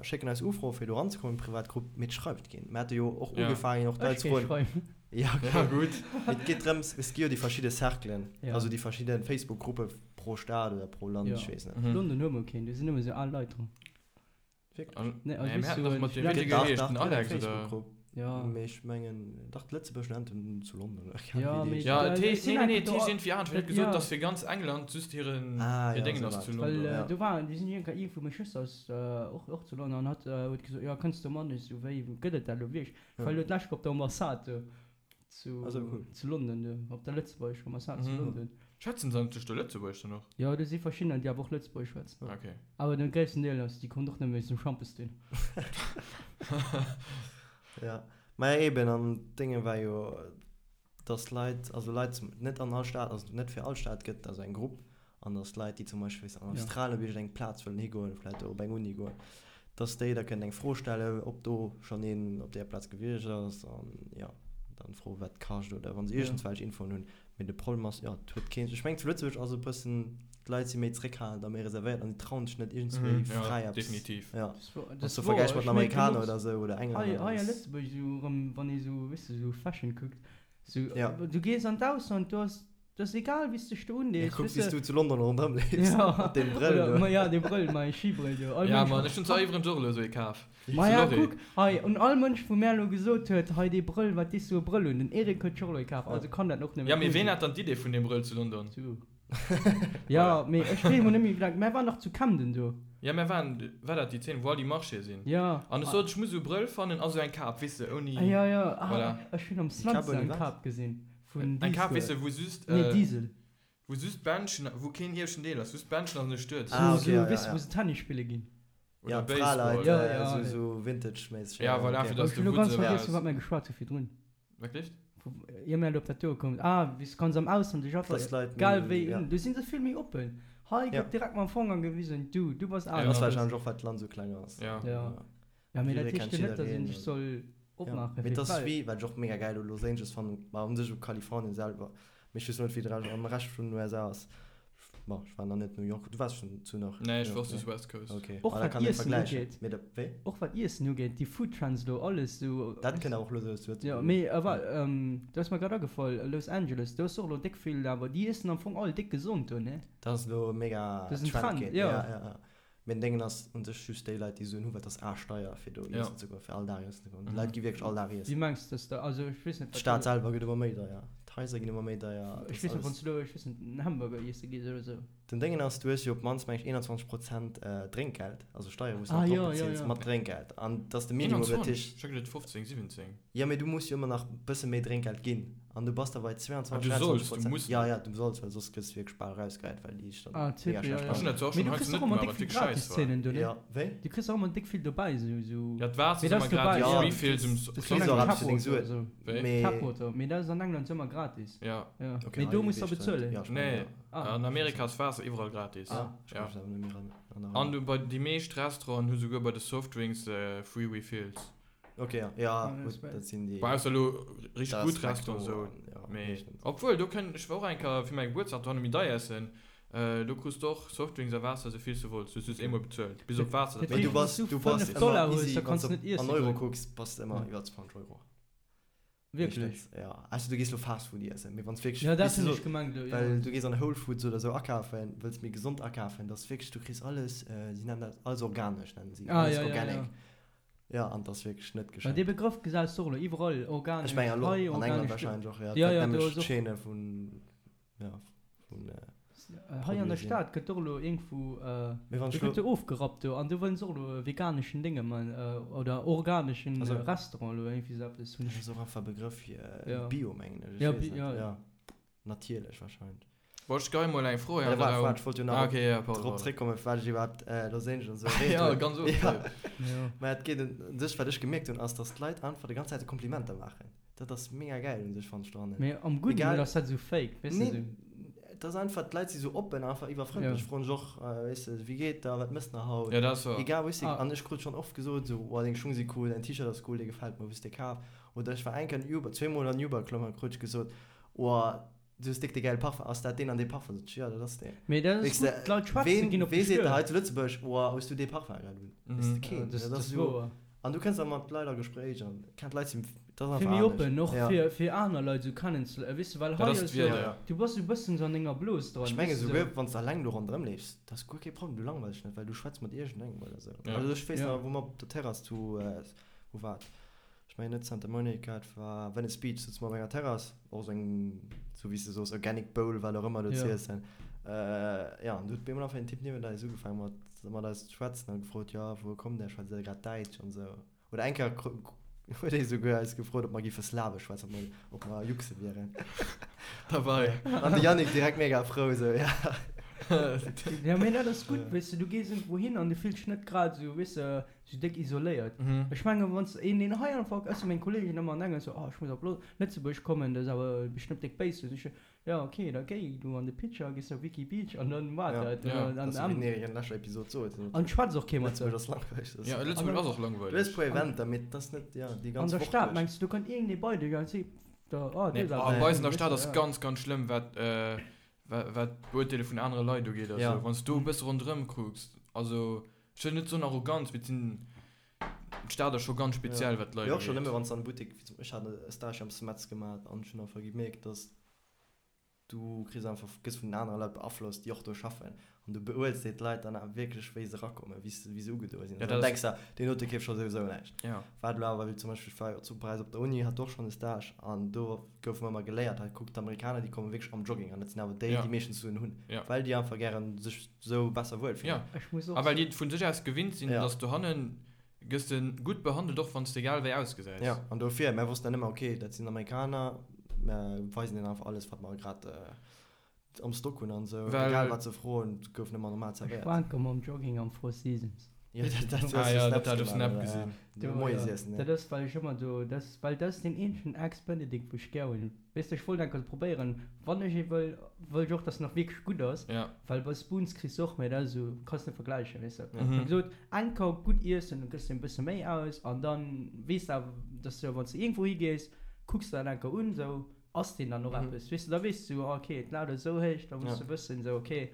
schécken eis Ufroe fir do eranzekommen an d'privat Grupp, mee et schreift keen. Mir hate jo och Ja. ugefaangen och d'Leit Ech ze géif froen. schreiwen. Ja, okay. Ja, gutt. Mee et geet drëms, et gi jo déi verschidde Cerclen, Ja. also déi verschidde Facebook-Gruppe pro Stad oder pro Land, Ja. ech weess net. Mhm. London hu mer keen, do sinn nëmme sou al Leit dran. Wierklech? An, Nee, also nee, mir weess haten du, dach mat en deem, wéi Student- dee Dach, geheescht, dach, den et gëtt eng Alex oder? Facebook-Grupp. Ja. Mee ech mengen, dach d'Lëtzebuerger Studenten zu London, oder keng Ja, Ahnung, wéi mee déi Ja, Da- et ech heescht, sinn nee, nee, nee, einfach et do heescht a- iergendwéi anescht. Hien huet dat- gesot, ja. dass fir ganz England just hiren, Ah, hir ja, Déngen sou ass war zu et. Well London. äh, Ja. do waren, déi sinn iergendwann iergendwou, meng Schwëster ass äh, och, och zu London an hat äh, huet gesot, jo kënns du mat? Ech sou, wéi gëtt et dat elo wierklech? Ja. Well elo d'lescht op der Ambassade do zu, Ah, sou cool. zu London do, op der lëtzebuergescher Ambassade zu Mhm. London. Schwätzen se eigentlech do Lëtzebuergesch dann och? Jo, do si verschiddener, déi awer och Lëtzebuergesch schwätzen. Ah, okay. Awer den gréissten Deel ass, déi kommt och nëmme wéinst dem Schampes dun. Ja, maja eben, an d'Dénge war jo, dass Leit, also Leit zum, net an all Stad, also net fir all Stad gëtt et also eng Grupp, an dass Leit, déi zum Beispill, weess an Ja. Australien op iergendeng Plaz wëllen higoen, vläicht do op eng Uni goen, dass déi da kënnen eng Fro stellen, ob do schonn een op där Plaz gewiescht ass, an jo, dann froen, wat kascht oder wa se Ja. iergendswelch Infoen hunn. Mee de Problem ass, jo, et huet keen, ech mengen zu Lëtzebuerg ass e bëssen, d'Leit si méi zeréckhalend a méi reservéiert an si trauen sech net iergendswéi Mhm, ja, fräi eppes, definitiv. ja. Das wor, Wann s das du wor, vergläichs mat ech den mierken Amerikaner och oder esou oder hei, Englänner, hei a dann ass. Lëtzebuerg esou erëm, wann ee sou, weess de, sou Fashion kuckt, sou, Ja. du gees an d'Ausland, do ass, do ass egal wéi s dech do Ja, undees, kuck weess wéi s de. du zu London ronderëm leefs, Ja, mat deem Brëll oder, do. ma ja, dee Brëll, mäi Skibrëll do, all Ja, Mënsch Mann, ech hunn zwar iwwregens och elo esou ee kaf. Maja, Zu Lorry. kuck, hei, un all Mënsch, wou mär elo gesot huet, hei dee Brëll, wat dees du e Brëll un? Den Eric huet sech och elo ee kaf, also kann dat och nëmme Ja, mee cool ween sinn. hat dann d'Idee vun deem Brëll zu London? Du. Ja, mee ech weess mol net méi, wéi laang, mär waren dach zu Camden do. Ja, mär waren, war dat déi Zeen, wou all déi Marchéë sinn? Ja. An ech sot, ech muss esou e Brëll fannen a sou eng Kap, weess de, ouni. Ah, ja, ja, ah, Voilà. ech hunn am Déi Kap Slanz ouni eng wat? Kap gesinn, vun Eng Kap, weess Diesel. de, wou just, Nee, Diesel. wou just d'Bändchen, wou keen ieweschten Deel ass, just d'Bändchen an de Stuerz. Ah, Sou, okay, sou, ja, ja, weess de, ja. wou se Tennis spille ginn. Oder Ja, Baseball. d'Fraleit, Ja, äh, ja. sou, sou Vintage-méisseg. Ja, voilà, okay. fir dass Ech de hunn elo Wutz ganz eraus. vergiess, vu wat mär geschwat hu virdrun. Wat gleeft? Vu, ier mär elo op dat do komm. Ah, wéi s kanns am Ausland dech einfach, Dass d'Leit egal méi, wéi ja. un, do si se vill méi oppen. Hei Ja. gëtt direkt mam Fanger gewisen, du, du bass Ja. Ass anescht. Das wahrscheinlech och, well d'Land sou kleng ass. Ja. Ja. Ja, mee dat Jidderee heescht kennt jo net, dass een jiddereen sech an- soll Ja. opmaache Mee fir et ass d'Welt. wéi, wat ech och mega gäil u Los Angeles fannen, ma un sech u Kalifornien selwer, mee ech weess net, wéi de Rescht am Rescht vun den USA ass. Bon, ech war nach net New York. Du waars schon zu nach Nee, ech New war York, just ne? West Coast. Okay. Och Ah, da wat kann een Iessen vergläichen. ugeet. Mee da, wéi? Och wat Iessen ugeet, déi Food Trends do, alles sou. Dat kënnt awer och lues lues zu Jo, Lëtzebuerg. mee awer, do ass mer grad agefall, Los Angeles, do ass och elo déck vill, awer déi iessen am Fong all déck gesond do, ne? Dat ass elo mega Dat ass en Trend Trend, ginn. jo. Ja, ja, ja. Mee den Déngen ass un sech just déi Leit, déi Suen hunn, well et ass aaschtdeier fir do Ja. iessen ze goen, fir all Dag iessen ze goen. Mhm. D'Leit gi wierklech all Dag Wéi iessen. mengs de, dass da, also ech weess net, wat D'Stad do, selwer gëtt ëmmer méi deier, d'Haiser ginn ëmmer méi deier, et ech ass weess net, wann alles. s du elo, ech weess net, en Hamburger iesse gees oder sou. Den Déngen ass, du hues jo op d'mannst, meng ech, 21 Prozent Drénkgeld, also Steiere wou s du Ah nach drop jo, jo, bezils jo. mat Drénkgeld. An dat ass de Minimum, dat 21? heescht. Ech hat geduet 15, 17. Jo, mee du muss jo ëmmer nach e bësse méi Drénkgeld ginn. An du bass da bei Ah, 22, du 23 solls, du Prozent. muss Ja, net. ja, du solls, well soss gëss du wierklech bal erausgehäit, well déi dann Ah, mega Typ, ja, schlecht ja. Ech hunn dat zwar och Mee schonn du hei kriss zu och net ëmmer gemaach, déck wat vill wierklech scheiss war. Gratiszeenen do, ne? Ja, wéi? Du kriss och ëmmer déck vill dobäi, sou, sou. Ja, d'Waasser Mee ass dat ëmmer ass dobäi, gratis, Ja, Refills um Das kriss ass och eng eppes fir deng Tap Suen. Water, sou. Wéi? Mee. Tap Water, mee dat ass an England ëmmer gratis. Ja. Ja. Okay, Mee hei do muss der weess ech dat net. bezuelen. Ja, ech mengen, Nee, ja. Ah. an Amerika ass Waasser iwwerall gratis. Ah, ech Ja. kann mech awer net méi ran An erinneren. du bei déi meescht Restauranten hu souguer bei de Softdrinks free Refills. Okay, ja, ja, Ja, gutt, das wär- dat sinn déi. Bon, ausser elo richteg Dat gutt ass Restauranten McDo esou. an, ja, Mee meeschtens. obwuel, do kënnt, ech war och eng Kéier fir mäi Gebuertsdag dohanne méi deier iessen, do krus de och Softdrinks a Waasser esou vill s du wollts, du hues just eemol bezuelt, bis op Waasser, dat Mee du war bass, Wann du du bass 5 ëmmer Dollar hues, easy, da wann kanns s du net du iessen an Euro goen. kucks, bass de ëmmer Ja. iwwer 20 Euro. Wierklech? Meeschtens, ja. Also du gees lo Fast Food iessen, mee wann s wierklech, Ja, dat weess du hunn so, ech gemengt elo, ja. well du gees an Whole Foods oder sou akafen, wëlls méi gesond akafen, dat ass wierklech, du kriss alles, si nennen dat alles organesch, nennen si, Ah, alles ja, ja, organic. ja. Ja, an dat ass wierklech net Well geschenkt. dee Begrëff gesäis de och elo iwwerall, organesch Ech mengen hei, elo an England organesch do. wahrscheinlech och, ja, Ja, dat ja, do nämlech ass och. d'Chaîne vun, ja, vun. Hei an der Stad gëtt och elo iergendwou, do gëtt jo ofgerappt do an do wëllen se och elo e veganeschen Dénge man oder organeschen Restaurant elo iergendwéi sou eppes hunn ech. Dat ass och einfach e Begrëff fir Bio mengen ech, ech weess net, jo natierlech wahrscheinlech. Bon ech geheie mol eng Fro hei an de Raum. Ech wollt jo nach drop zréckkommen firwat ech iwwerhaapt Los Angeles esou erwähnt hunn. Jo ganz oft. Mä et geet un sech, wat ech gemierkt hunn ass, datt d'Leit einfach déi ganz Zäit Komplimenter maachen. Dat ass mega gäil un sech fannen ech dohannen. Mee am gudden oder ass dat esou fake, weess de sou? Et ass einfach, d'Leit si sou oppen, einfach iwwerfrëndlech, froen sech och, weess de, wéi geet der, wat mëss de haut? Ja, dat ass wouer. Egal wou ech sinn. An ech krut schonn oft gesot sou, oh deng Schung si cool, däin T-Shirt ass cool, dee gefält mer, wou hues de dee kaf? Oder ech war eng Kéier an Uber, zweemol an Uber geklomm an krut ech gesot, oh du hues déck dee gäile Parfum, ass dat deen an dee Parfum? Sot ech, jo dat ass deen. Mee dat ass gutt, d'Leit schwätzen, ginn op dech duer. Wee seet der hei zu Lëtzebuerg, oh hues du dee Parfum grad un? Weess de, keen. Dat ass wouer. An du kënns da mat Leit a Gespréich an kennt Leit sinn, dat ass einfach Vill méi oppen och fir fir aner Leit esou kennen ze léieren, weess de, well hei ass jo, du bass esou e bëssen esou an denger Blos dran, Ech menge souguer wann s de alleng do ronderëm leefs, dat ass guer kee Problem, du langweils dech net, well du schwätz mat iergendengem oder esou. Also ech weess nach, wou mer op der Terrass zu, wou war et, ech mengen net Santa Monica, et war Venice Beach, souze mer op enger Terrass, och esou eng, esou wéi s de soos, organic bowl, wat och ëmmer do z'iessen, jo, an du huet op eemol einfach een Typ niewent eis ugefaange mat mat eis ze schwätzen an gefrot, jo, wouer kommt där, schwätzt der grad Däitsch an esou. Oder eng Kéier huet ee souguer eis gefrot, ob mer géife Slawesch schwätzen, ob mer, ob mer Juxe wieren. Dabei. An de Yannick direkt mega frou esou, ja. Ja, mee dat ass gutt, weess de, du gees iergendwou hin an du fills dech net grad esou, weess de, esou déck isoléiert. Ech mengen, wann s de een, deen hei einfach, ech si meng Kolleegen ëmmer an England esou, oh, ech muss op Lëtzebuerg kommen, dat ass awer bestëmmt déck béis. Sot ech, Jo ok, da géi du an de Pitcher, gees op Wiki Beach an dann war dat. Ja, dat ass wéi mir an leschter Episod soten. An schwätzt och kee mat der. Lëtzebuerg ass langweileg. Ja, Lëtzebuerg ass och langweileg. Du hues puer Eventer, mee et ass net, ja, déi ganz Woch duerch. An der Stad, mengs du, do kënnt iergendee bei dech an seet der, oh, du hues awer. Bei eis an der Stad ass ganz, ganz schlëmm, wat, wat d'Beurteele vun anere Leit ugeet a sou. Wann s du e bësse ronderëm kucks, also, ech wëll net soen Arroganz, mee et sinn, d'Stad ass scho ganz speziell, wat d'Leit ugeet. Mee och schonn nëmme wann s de an de Buttek, wéi zum, ech hat e Stage am Smets gemaach an ech hunn einfach gemierkt, dass Du kriss einfach, gëss vun den anere Leit beaflosst, déi och do schaffen. An du beurteels déi d'Leit dann awer wierklech, wéi se erakommen, wéi se, wéi se ugedoe sinn. Ja, Dann dat ass. denks de, deen dote keeft scho souwisou näischt. Ja. Wat elo awer, wéi zum Beispill, ech war jo zu Paräis op der Uni, hat och schonn e Stage an do goufe mer ëmmer geléiert, hei kuck, d'Amerikaner, déi komme wierklech am Jogging an dat sinn awer déi, Ja. déi meeschtens Suen hunn, Ja. well déi einfach gären sech sou besser wuel fillen. Ja. Ech muss och A well soen. déi et vu sech aus gewinnt sinn, Ja. dass dohannen Gëss de gutt behandelt, och wann s de egal wéi ausgesäis. Ja, an dofir, mär wossten dann ëmmer, ok, dat sinn Amerikaner, mär weisen hinnen einfach alles, wat mer grad am Stock hunn an esou. Well. Egal wat se froen, et gouf nëmmer normal Ech zerwéiert. war enker mam Jogging am Four Seasons. Jo, dat, dat hues Ah du jo, dat Snaps hat ech op gemaach, Snap oder? gesinn. Ja, Do, Moies jo. iessen, Dat ja. ass, well ech ëmmer do, dat ass, well dat ass deen eenzegen Eggs Benedict, wou ech gär hunn. Weess de, ech wollt enker probéieren, wann ech ee wëll, wëll ech och, dass en och wierklech gutt ass. Ja. Well bei Spoons kriss de och, mä dat ass esou, kanns net vergläichen, weess de. Mhm. Ech hu gesot, enker gutt iessen, dann gëss de e bësse méi aus an dann weess de awer, dass de, wann s de iergendwou higees, kucks de dat enker un, esou, ass deen dann och eppes, weess de, da weess de esou, ah ok, d'Lat ass esou héich, da muss Ja. de wëssen, esou, ok,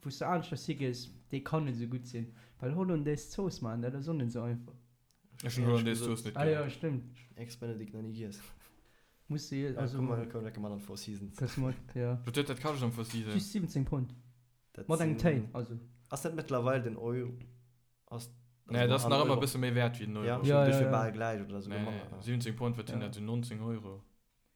wou s de aneschters higees, dee kann net esou gutt sinn. Well Hollandaise Zooss maachen, dat ass och net esou einfach. Ech hunn Hollandaise Zooss net Ah gär. jo, stëmmt. Eggs Benedict nach ni giess. Muss se, Ja, also. komm mal, komm lecker mat an d'Four Seasons. Kënns mat, ja. Wat huet dat kascht am Four Seasons? Just 17 Pond. Dat Mat engem sinn- Téi, also. Ass dat mëttlerweil den Euro? Ass, Nee, dat ass an nach ëmmer Euro? e bësse méi wäert wéi den Euro. Ja, Ja, ja, ja, ja, ja. bal gläich oder souguer Nee, manner. 17 Pond, wat sinn Ja. dat, sou 19 Euro?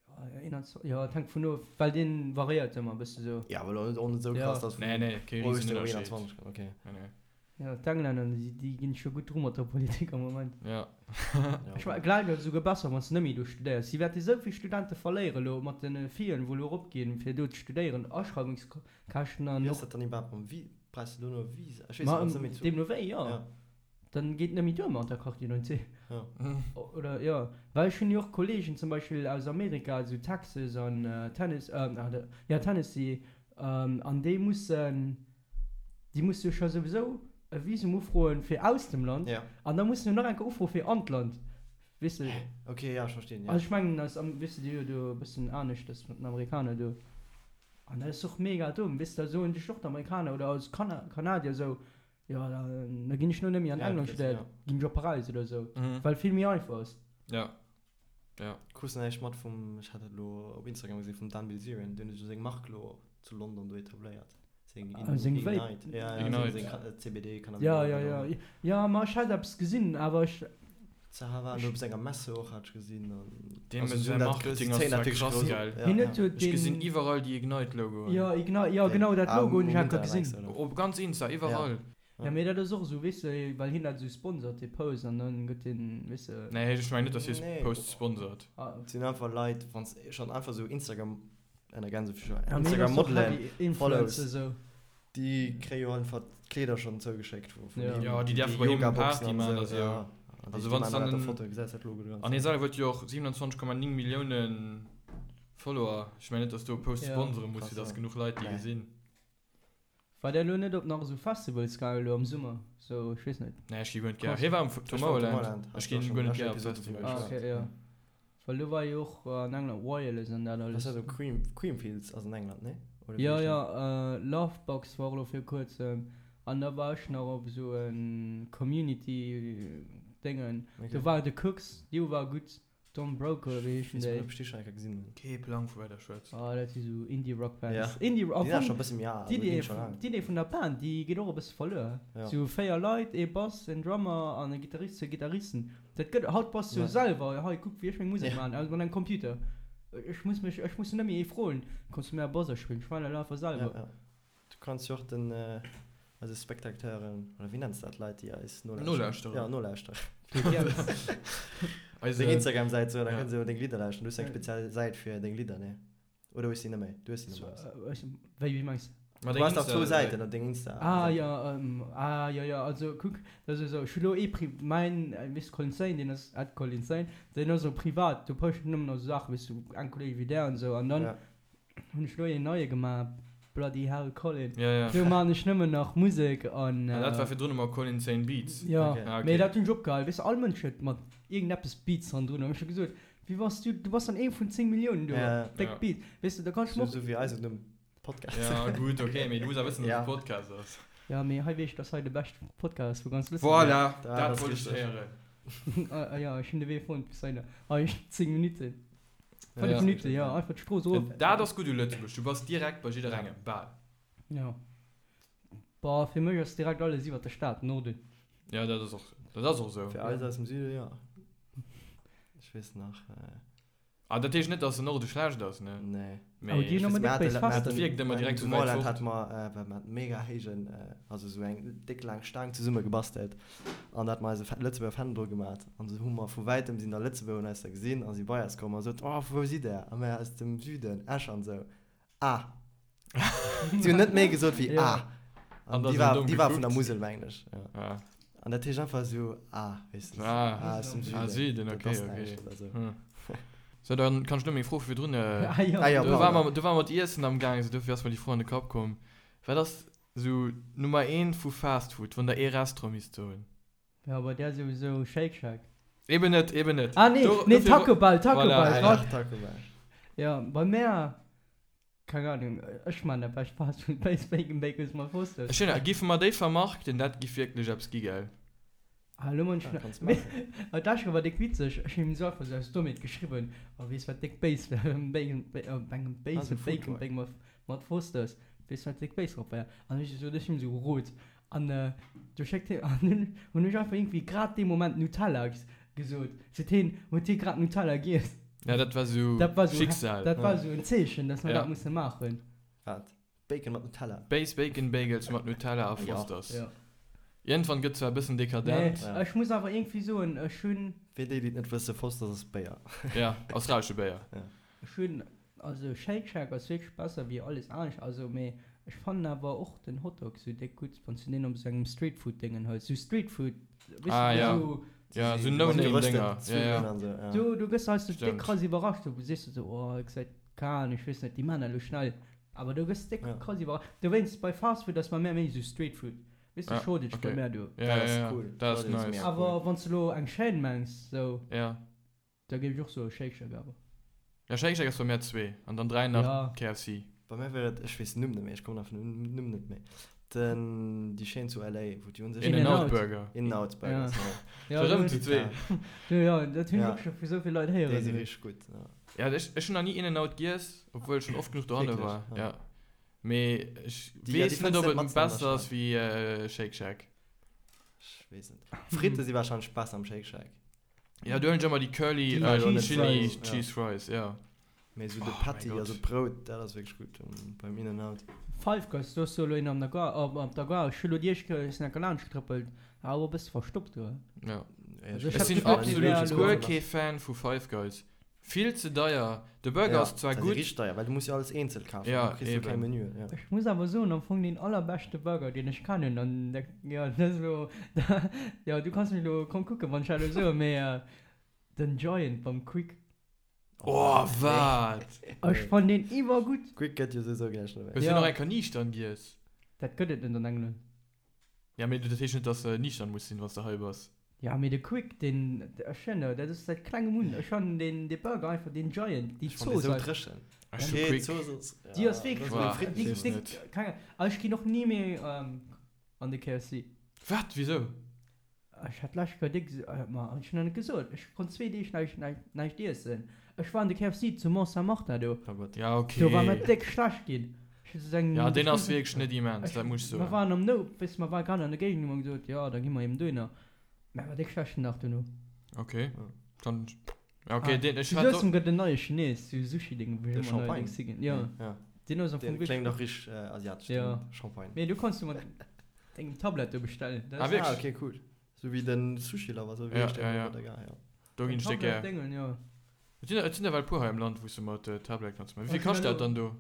Ja, 21, ja, et hänkt vun of, well deen variéiert ëmmer e bësse sou. Ja, awer elo och net sou Ja. krass, dass Nee, nee, kee vun Euro op Riesenënnerscheed. 21 okay. Nee, nee. Ja, d'Englänner, déi, déi ginn scho gutt dru mat der Politik am Moment. Ja. Ech mengen, gläich ass et esouguer besser, wann s de net méi do studéiers. Si wäerte esou vill Studente verléieren elo mat de Fillen, wou elo eropginn, fir do ze studéieren, Aschreiwungskäschten an Wéi ass och. dat dann iwwerhaapt mam Vi-, brauchs de do no e Visa? Ech weess Ma et net, méi zu. deemno wéi, jo. Ja. Dann geet net méi duer mat der Carte d'identité. Ja. Oder, jo. Well ech hunn jo och Kollegen zum Beispill aus Amerika, esou Texas an Tennes-, jo, Tennessee, an déi mussen. Déi musse jo scho souwisou e Visum ufroen fir aus dem Land an da mussen se nach eng Kéier ufroe fir an d'Land, weess de. Ok, ja, ech verstinn, ja. Also ech mengen eis, weess de, déi hu jo do e bëssen aneschters mat den Amerikaner do. An dat ass och mega domm, weess de, da soen sech och d'Amerikaner oder als Kanadier esou, jo da ginn ech lo net méi an England studéieren, ginn ech op Paräis oder esou, well et vill méi einfach ass. Ja, ja. Krus näischt mat vum, ech hat dat elo op Instagram gesinn, vum Dan Bilzerian, deen huet jo seng Mark elo zu London do etabléiert. Seng Ah, seng Vape. Ignite. Ja, ja, Ignite. seng, seng CBD Cannabis. Ja, ja, ja. Ja, ma ech hat eppes gesinn, awer ech. Zaha war elo op senger Messe och, hat ech gesinn. An Deem also säi dat Marketing ass zwar krass, gell? Hien huet jo Ech gesinn deen. iwwerall déi Ignite-Logoen. Jo, Ignite, jo genau dat Logo hunn ech enker gesinn. Op ganz Insta, iwwerall. Ja mee dat ass och esou, weess de, well hien dat esou sponsort dee Post an dann gëtt deen, weess de. Nee, ech mengen net, dass hie Posts sponsort. Et sinn einfach Leit, wann s schonn einfach esou Instagram, ënner Gänsefüßchen, Ja mee hien ass och Instagram-Modelen heavy Influencer follows, esou. déi kréie jo einfach d'Kleeder schonn zougeschéckt vu vun Ja. him, Ja, déi déi däerfe bei him Yoga-Boxen Party an maachen a esou, sou. ja. An Also déi wann s maachen dann dat en, Foto, gesäis dat Logo dran. an hie selwer huet jo och 27,9 Millioune Follower, ech mengen net, dass do e Post Ja. sponsere muss, Krass, fir dass ja. genuch Leit déi Nee. gesinn. War der elo net op nach esou Festivals gaangen elo am Summer? Sou, ech weess net. Nee, ech gi guer net gär. Hie war am Tomorrowland. Ech ginn guer net gär op Festivals. Ah, okay, jo. Well do war jo och an England Wireless an dat alles. Was war do? Cream, Creamfields ass an England, nee? Oder Jo, jo, Lovebox war och elo vir kuerzem. An da war ech nach op esou e Community Déngen. Do war de Cooks, dee war gutt. Don Broco oder wéi heeschen déi? Ech déi schon eng Kéier gesinn hunn. Kee Plang vu wat der schwätzt. Ah dat si sou Indie Rock Bands. Ja. Indie Rock, Déi sinn scho e bësse méi al, also d'Idee ginn scho laang. d'Idee vun der Band déi geet och e bësse verluer. Ja. Sou 4 Leit, ee Bass, en Drummer an e Gittarist, zwou Gittaristen. Dat gëtt haut bass du Ja. selwer, hei kuck wéi ech meng Musek Ja. maachen, also mat engem Computer. Ech muss mech, ech muss net méi ee froen, kanns du mir e Bass aspillen, ech maachen dat einfach Ja, selwer. ja. Du kanns jo och den eise Spectateuren, oder wéi nenns de dat, Leit déi eis nolauschteren? Nolauschterer. Ja, nolauschteren. Eise. Deng Instagram-Säit soen, da Ja. kënne se jo deng Lidder lauschteren. Du hues eng speziell Säit fir deng Lidder, nee? Oder hues de déi net méi? Du hues déi net méi. Wéi, wéi mengs de? Ma Du deng has dach zwou Insta-Säit. Säiten op deng Insta. Ah jo, ah jo jo, also kuck, dat ass esou, ech hu lo ee Pri-, mäin, weess de, Colin Sane, deen ass at Colin Sane, deen ass esou privat, do posten ech nëmmen esou Saachen, weess du, eng Kolleg wéi där an esou, an dann Ja. Hunn ech lo een neie gemaach, Bloody Hell Colin. Ja, ja. Do maan ech nëmmen nach Musek an. Ah, dat war virdrun ëmmer Colin Sane Beats. Jo, Okay. Ah, okay. mee dat hunn ech opgehal. Weess de, all Mënsch huet mat iergendeppes Beats hannendrun. An ech hu gesot, wéi bass du, du bass dann ee vun 10 Milliounen do, Ja. déck Ja. Beat. Weess de, da kann ech Sou, mer och. sou wéi eisen Numm, Podcast. Ja, gutt, okay, mee du muss awer wëssen, dass Ja. et e Podcast ass. Ja, mee hei weess ech, dass hei de beschte Podcast ass vu ganz Lëtzebuerg. Voilà, Dat dat ass wollt ech richteg. héieren. Ah, ja, ech hunn de Wee fonnt bis heihinner. Hei, 10 Minutten. 5 Ja. Minutten, ja, einfach d'Strooss erof. Dat ass gutt u Lëtzebuerg, du bass direkt bei jidderengem, bal. Ja. Boah, fir mech ass direkt alles iwwert der Stad, Norden. Ja, dat ass och, dat ass och esou. Fir eis aus dem Süden, ja. Ech weess nach. Ah, dat heescht net, dass den Norde schlecht ass, ne? Nee. Mee Awer déi hunn ëmmer Mir déck béis haten, mir Fester. haten, Wierkt ëmmer direkt zu sou wäit Moorland fort. hate mer, well mer haten mega héijen, also sou eng déck laang Staang zesumme gebastelt an da hate mer eise Lëtzebuerger Fändel dru gemat an sou hu mer vu wäitem sinn da Lëtzebuerger hunn eis da gesinn a si bei eis komm a sot, oh vu wou sidd der? A mir aus dem Süden, Esch an sou. Ah. Si hunn net méi gesot wéi Ja. ah. An An da déi sou war, domm déi war vun der gekuckt. Musel, mengen ech. Ja. Ah. An dat heescht einfach sou, ah, weess de, Ah. ah, aus dem Süden. Ah, Süden, Dat okay, ass okay. näischt oder sou. Hm. So, dann kann ech lo meng Fro vu virdrun. Äh, Ah, ja. Ah, ja, do war pardon. mer, do war mer d'Iessen am Gaang, sou dofir ass mer déi Fro an de Kapp komm. Wat ass sou Nummer eent vu Fast Food, wann der ee Restaurant misst soen? Ja, bei där souwisou Shake Shack. Eben net, eben net. Ah nee, Do- nee, dofir- Taco Bell, Taco Voilà. Bell. Ah, Grad. ja, Taco Bell. Ja, bei mär, keng Ahnung, ech man dat bescht Fast Food, Base Bacon Bagels mat Fosters. Ech hunn, giffe mer déi vermarkten, dat giff wierklech eppes gi, gell? Ah, lo man ech Ja, nach, kanns mee, maachen. ah, dat war déck witzeg, ech hunn him sou einfach sou aus Dommheet geschriwwen, oh, weess wat déck béis wär, Bacon, Ba-, oh, engem Ah, Base sou Food Bacon Truck. Bagel mat, mat Fosters, weess wat déck béis drop wär? An ech sou, ech hunn him sou gerot, An du schéckt hien, an dunn hunn ech einfach iergendwéi grad dee Moment Nutella gesot. Seet hien, huet hie grad Nutella giess. Ja, dat war sou Dat war sou, Schicksal. dat war sou en Zeechen, dass mer Ja. dat musse maachen. Wat? Bacon mat Nutella? Base Bacon Bagels mat Nutella a Ja. Fosters. Ja. Iergendwann gëtt zwar e bëssen Nee, dekadent. Ja. ech muss awer iergendwéi soen, ech hunn, Fir déi, déi et net wëssen, Fosters ass Béier. Ja, australesche Béier. ech hunn Also Shake Shack ass wierklech besser wéi alles anescht, also mee ech fannen awer och den Hotdog sou déck gutt wanns du deen op sou engem Streetfood Déngen hëls, sou Streetfood weess Ah du ja, sou ja sou Mat No Name gerösteten Dénger, ja Zwiwwelen ja. an sou, ja. do do gëss du heiansdo déck Stemmt. krass iwwerrascht, do sees du sou oh et gesäit keng Ahnung ech weess net déi maan dat elo schnell, awer do gëss déck Ja. krass iwwerrascht, dowéinst bei Fast Food ass bei mär méi sou Streetfood, weess du Ja, Shortage bei okay. mär do. Ja Dat ja ass ja, cool. dat ass Shortage ass nice. mega cool. Awer wanns du elo eng Chaîne mengs sou. Ja. Da géif ech och soe Shake Shack awer. Ja Shake Shack ass bei mär zwee an dann 3 nach Ja. KFC. Bei mär wier et, ech weess den Numm net méi, ech kommen einfach den Numm net méi, den, déi Chaîne zu LA, wou déi un sech In and In-N-Out. Out Burger. In-N-Out Burgers, ja. Ja, Scho rëm do zu zwee. Du, ja, dat hunn ech Ja. och scho vu sou vill Leit Déi héieren. si richteg gutt, ja. Ja ech ech hunn nach ni In and Out giess, obwuel ech schonn oft genuch dohanne Wierklech? war. Ja. Ja. Mee ech Déi, ja, déi weess net fënns ob net et matzen an der besser ass Stad. wéi Shake Shack. Ech weess net. Fritte si warscheinlech besser am Shake Shack. Ja, do hunn ech ëmmer déi Curly Déi Cheese Chili Fries. Cheese Fries, ja. Mee esou de Oh mäi Patty, Gott. also d'Brout, dat ass wierklech gutt beim In-N-Out. Five Guys, do ass jo elo een an der Gare, op op der Gare. Ech hu lo déi éischt Kéier, ech sinn enker laanscht getrëppelt, war awer e bësse verstoppt do. Ja. Also ech Ech hat sinn d'Gefill, déi wär absolut elo. guer kee Fan vu Five Guys. Vill ze deier. De Burger Ja, ass zwar dat ass gutt. richteg deier, well du muss jo alles eenzel kafen, Ja, du kriss jo keng eben. Menüen, ja. Ech muss awer soen, am Fong deen allerbeschte Burger, deen ech kennen, an dat, jo, dat ass elo, jo, du kanns mech elo komm kucken, wann ech dat elo soen, mee den Giant beim Quick. Oh, wat? Ech fannen deen iwwergutt. Quick gëtt jo souwisou gläich net méi. Hues du Ja. nach eng Kéier niichtern giess? Dat gëtt et net an England. Ja, mee dat heescht net, dass de niichtern muss sinn, wann s de hei bass. Ja, mee de Quick, deen, ech hunn, dat ass säit klengem un, ech fannen deen, dee Burger einfach, deen Giant, déi Ech fannen Zooss dee sou einfach. dréchen. Ech hu Okay, Quick. d'Zooss ass, Déi ja, ass wierklech dat ass Boah, wéi déi, ech weess déi, net. keng Ahnung, ech ginn och ni méi an de KFC. Wat? Wisou? Ech hat d'lescht Kéier déck, ma ech hunn nach net gesot, ech konnt zwee Deeg näischt, näischt, näischt iessen. Ech war an de KFC zu Mont-Saint-Martin do. Oh Gott. Ja, okay. Do war mer déck schlecht ginn. Ech hu sou eng. Ja, deen ass wierklech net immens, dat muss ech Mer soen. waren am No, weess, mer ware grad an der Géigend, hu mer gesot, jo, da gi mer eben dohinner. Mä war déck schlecht den Dag dono. Okay, dann, ja okay, Ah, deen, ech zu hat Suessem gëtt en neie Chines, sou Sushi-Ding, wou De ech ëmmer Champagne. neierdéngs higinn. Jo, Ja. deen ass am Fong Deen wierklech kléngt gutt. och richteg asiatesch, Ja. den Champagne. Mee du kanns du mat dengem Tablet do bestellen. Dat Ah, ass wierklech? Ah, okay, cool. Sou wéi den Sushi Lover, sou wéi Ja, heescht deen ja, do ja. bei der Gare, ja. Do ginn ech déck gär. Tablet-Déngen, jo. Et sinn, et sinn ewell puer hei am Land, wou s du mat Tablet kanns maachen. Wéi vill Ech hunn kascht dat elo. dann do?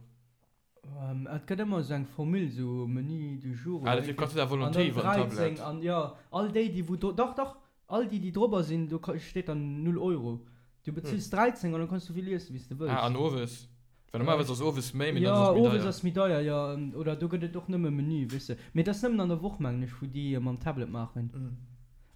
Et gëtt ëmmer esou eng Formule, esou Menu du jour Ah, oder dat iergendwéi. kanns du da An Volonté dann iwwer den 13 Tablet. an jo, all déi, déi wou do, dach, dach, all déi, déi drobber sinn, do steet dann 0 Euro. Du bezills 13 an dann kanns du esou vill iessen, wéi s de wëlls. Ah, an owes? Well normalerweis ass owes méi, mee dann Jo, ass et méi owes deier. ass méi deier, jo. Oder do gëtt et och nëmme Menü, weess de. Mee dat ass nëmmen an der Woch, mengen ech, wou déi mam Tablet maachen.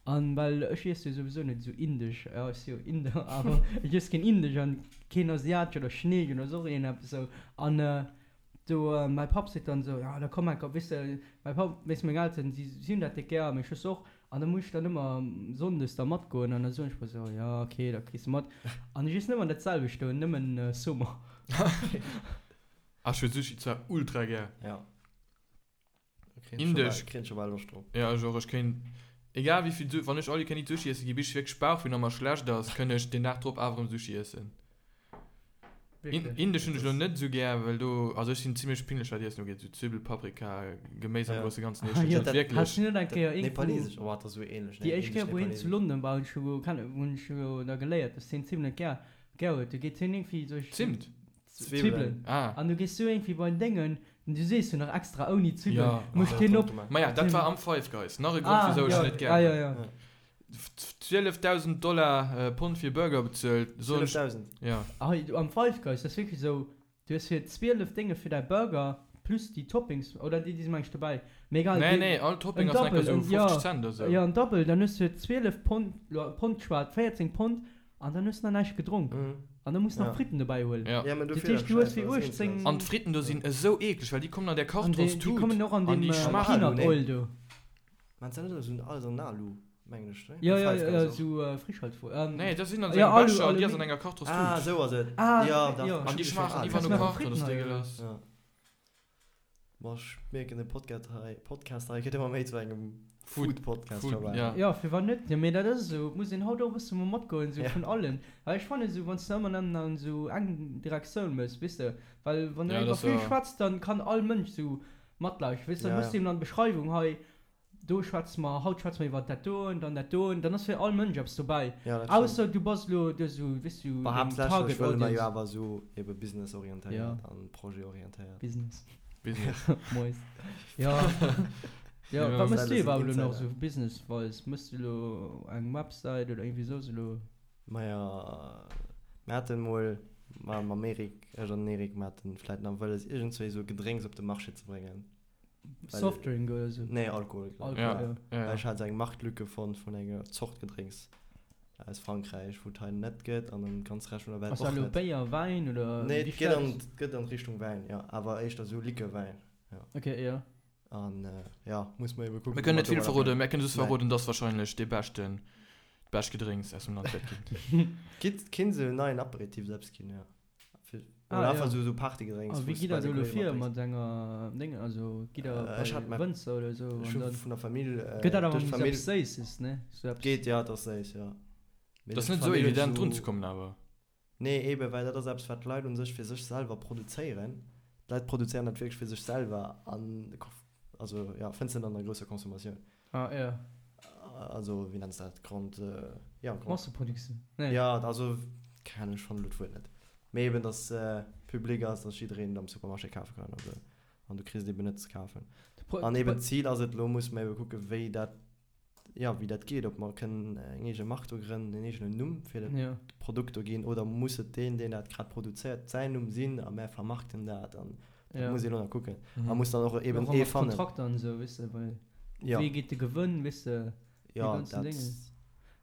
An well ech iesse jo souwisou net esou indesch, jo ech si jo Inder, awer ech iess keen indesch an keen asiatesch oder chineesch oder soss iergendeppes esou. An do mäi Papp seet dann esou, jo da komm enker, weess de, mäi Papp, weess meng Elteren, si si hunn dat déck gär, meng Schwëster och, an da muss ech dann ëmmer sonndes da matgoen an da soen ech mer esou, jo ok, da kriss de mat. An ech iess ëmmer dat selwecht do, nëmmen Summer. Ah, ech hu Sushi zwar ultra gär. Ja. Indesch. Kréien scho bal Loscht drop. Ja, ech och. Ech kéint, egal wéi vill, wann ech all you can eat Sushi iessen gi, bis ech wierklech Bauchwéi an mer schlecht ass, kënn ech den Dag drop awer erëm Sushi iessen. Wierklech? Indesch hunn ech elo net esou gär, well do, also ech sinn zimlech pinglech wat Iessen ugeet, esou Zwibbel, Paprika, Geméis am Ja. grousse Ganzen Ah, iessen ech jo. net wierklech. Has du net eng Kéier iergendwou. Nepalesesch, oh, dat ass esou ähnlech, ne? Déi éischt Kéier, wou hien zu Indisch-nepalesesch. London war, hunn ech jo kennen, hunn ech jo da geléiert, dass hien Zimt net gär, gär huet. Du geet hien iergendwéi duerch. Zimt? Zwibbelen. Ah. An du gees du iergendwéi bei den Déngen, an du sees jo nach extra ouni Zwibbelen, Ja. mécht hien op. Maja, dat war am Five Guys. Nach e Grond, Ah, wisou ech ja, net gär ah, ja, hunn. ja. 12.000 Dollar, Pond fir Burger bezuelt. Soen ech. 12.000? Ja. Ah, am Five Guys, dat ass wierklech esou, du hues fir 12 Dénge fir däi Burger plus déi Toppings, oder déi, déi si meng ech dobäi, mee egal. Nee, dee- nee, all Topping en ass enker Double, esou en- ja, 50 Cent oder sou. Ja, en Double, dann hues du fir 12 Pond, lo Pond geschwat, 14 Pond, An dann hues de nach näischt gedronk. An dann muss nach Fritten dobäi huelen. Ja. Ja, mä Dat dofir heescht, dat du hues Schäiss, fir well es 18. eenzel ass. An d'Fritten do sinn esou eekleg, well déi kommen an där An déi, déi Kartonstut kommen och an an deem déi schmaachen. Peanut nee. Oil do. Mä se net esou alles an Alu, mengen ech, ne? Ja, Bei ja, Five ja, Guys och. esou Frischhaltfolie. Nee, dat sinn an esou Ja, engem Alu, Becher an déi ass Aluminium. an enger Kartonstut. Ah, esou ass et. Ah, Ja, dach. ja. Ech An déi hu schmaachen schon iwwer Kannst no du nach Karton, Fritten dat ass hei, oder? dégueulasse. Ja. Boah, ech mierken, de Podcast hei, Podcast hei gëtt ëmmer méi zu engem Food- Food-Podcast Food, scho bal. ja. Ja, firwat net? Jo, mee dat ass esou, et muss een haut och e bësse mol matgoen, esou Ja. vun allen. Well ech fannen esou, wann s de ëmmer nëmmen an esou eng Direktioun mëss, weess de, well wann du Ja, dat iwwer ass vill jo. schwätz, dann kann all Mënsch esou matlauschteren, weess de, dann Ja, hues du ja. eben an der Beschreiwung hei, Do schwätze mer, haut schwätze mer iwwer dat doen, dann dat doen, dann ass fir all Mënsch eppes dobäi. Ja, dat stimmt. Ausser du bass elo do esou, weess du, Bah, deng haaptsächlech Target wëlle mer jo Audience. awer esou ebe businessorientéiert Ja. an projetorientéiert. Business. Business. Mois. Ja. Ja, Ja. wat mëss du Insider sinn iwwerhaapt elo nach Insider. esou business-wise? Mëss du elo eng Website oder iergendwéi soss elo? Maja, mir haten mol mam Eric, ech an den Eric, mir haten vläit nach wëlles iergendzwéi esou Gedrénks op de Marché ze bréngen. Well- Softdrink oder esou? Nee, Alkohol. glaub ich. Alkohol, Ja. ja. Ja, Well ech ja. hat esou eng Marktlücke fonnt vun enger Zort Gedrénks aus Frankräich, wou et hei net gëtt an am ganze Rescht vun der Welt Ass dat och elo net. Béier, Wäin oder Nee, wéi et geet an, stells? et gëtt an d'Richtung Wäin, jo, awer éischter esou Likör-Wäin, jo. Okay, ja. An ja, muss mer ebe kucken, Mir wou kënnen mer net vill domadder verroden, mir kënnen just Nee. verroden, dass wahrscheinlech dee beschten, d'bescht Gedrénks aus dem Land wäert ginn. Gitt, kinnt esou en neien Aperitif eppes ginn, jo. Fir, Ah, oder einfach ja. esou, esou Partygedrénks, A wou wéi s gitt du der bei do de elo Kollege vir matdrénks. mat enger Déngen, also gitt der Äh, ech bei hat mä, Wënzer oder esou ech an hu dann vun der Famill, gëtt dat awer duerch méi sou d'Famill eppes Séisses, ne? Sou eppes. Geet, ja, et ass séiss, jo. Mee Dat ass net esou fannen ech evident esou drun ze kommen awer. Nee, eben, well dat ass eppes, wat d'Leit un sech fir sech selwer produzéieren. D'Leit produzéieren dat wierklech fir sech selwer an, also, jo, fënns de net an der grousser Consommatioun. Ah, jo. Also, wéi nenns de dat? Grande, jo, Grande. Masseproduktioun? Nee. Jo, also, keng Ahnung, ech fannen elo d'Wuert net. Mee eben, dass public ass, dass jiddereen et am Supermarché kafe kann an esou. An du kriss et eben net ze kafen. An eben d'Zil ass et, elo musse mer ebe kucken, wéi dat, jo, wéi dat geet, ob mer kënnen eng eege Mark do grënnen, en eegenen Numm fir dat Produkt do ginn, oder muss et deen, deen dat grad produzéiert, säin Numm sinn a mär vermarkten dat an dat muss ee elo nach kucken. A muss dann och eben ee fannen. Kontrakter an esou, weess de, well wéi geet de Gewënn, weess de, déi ganzen Déngen.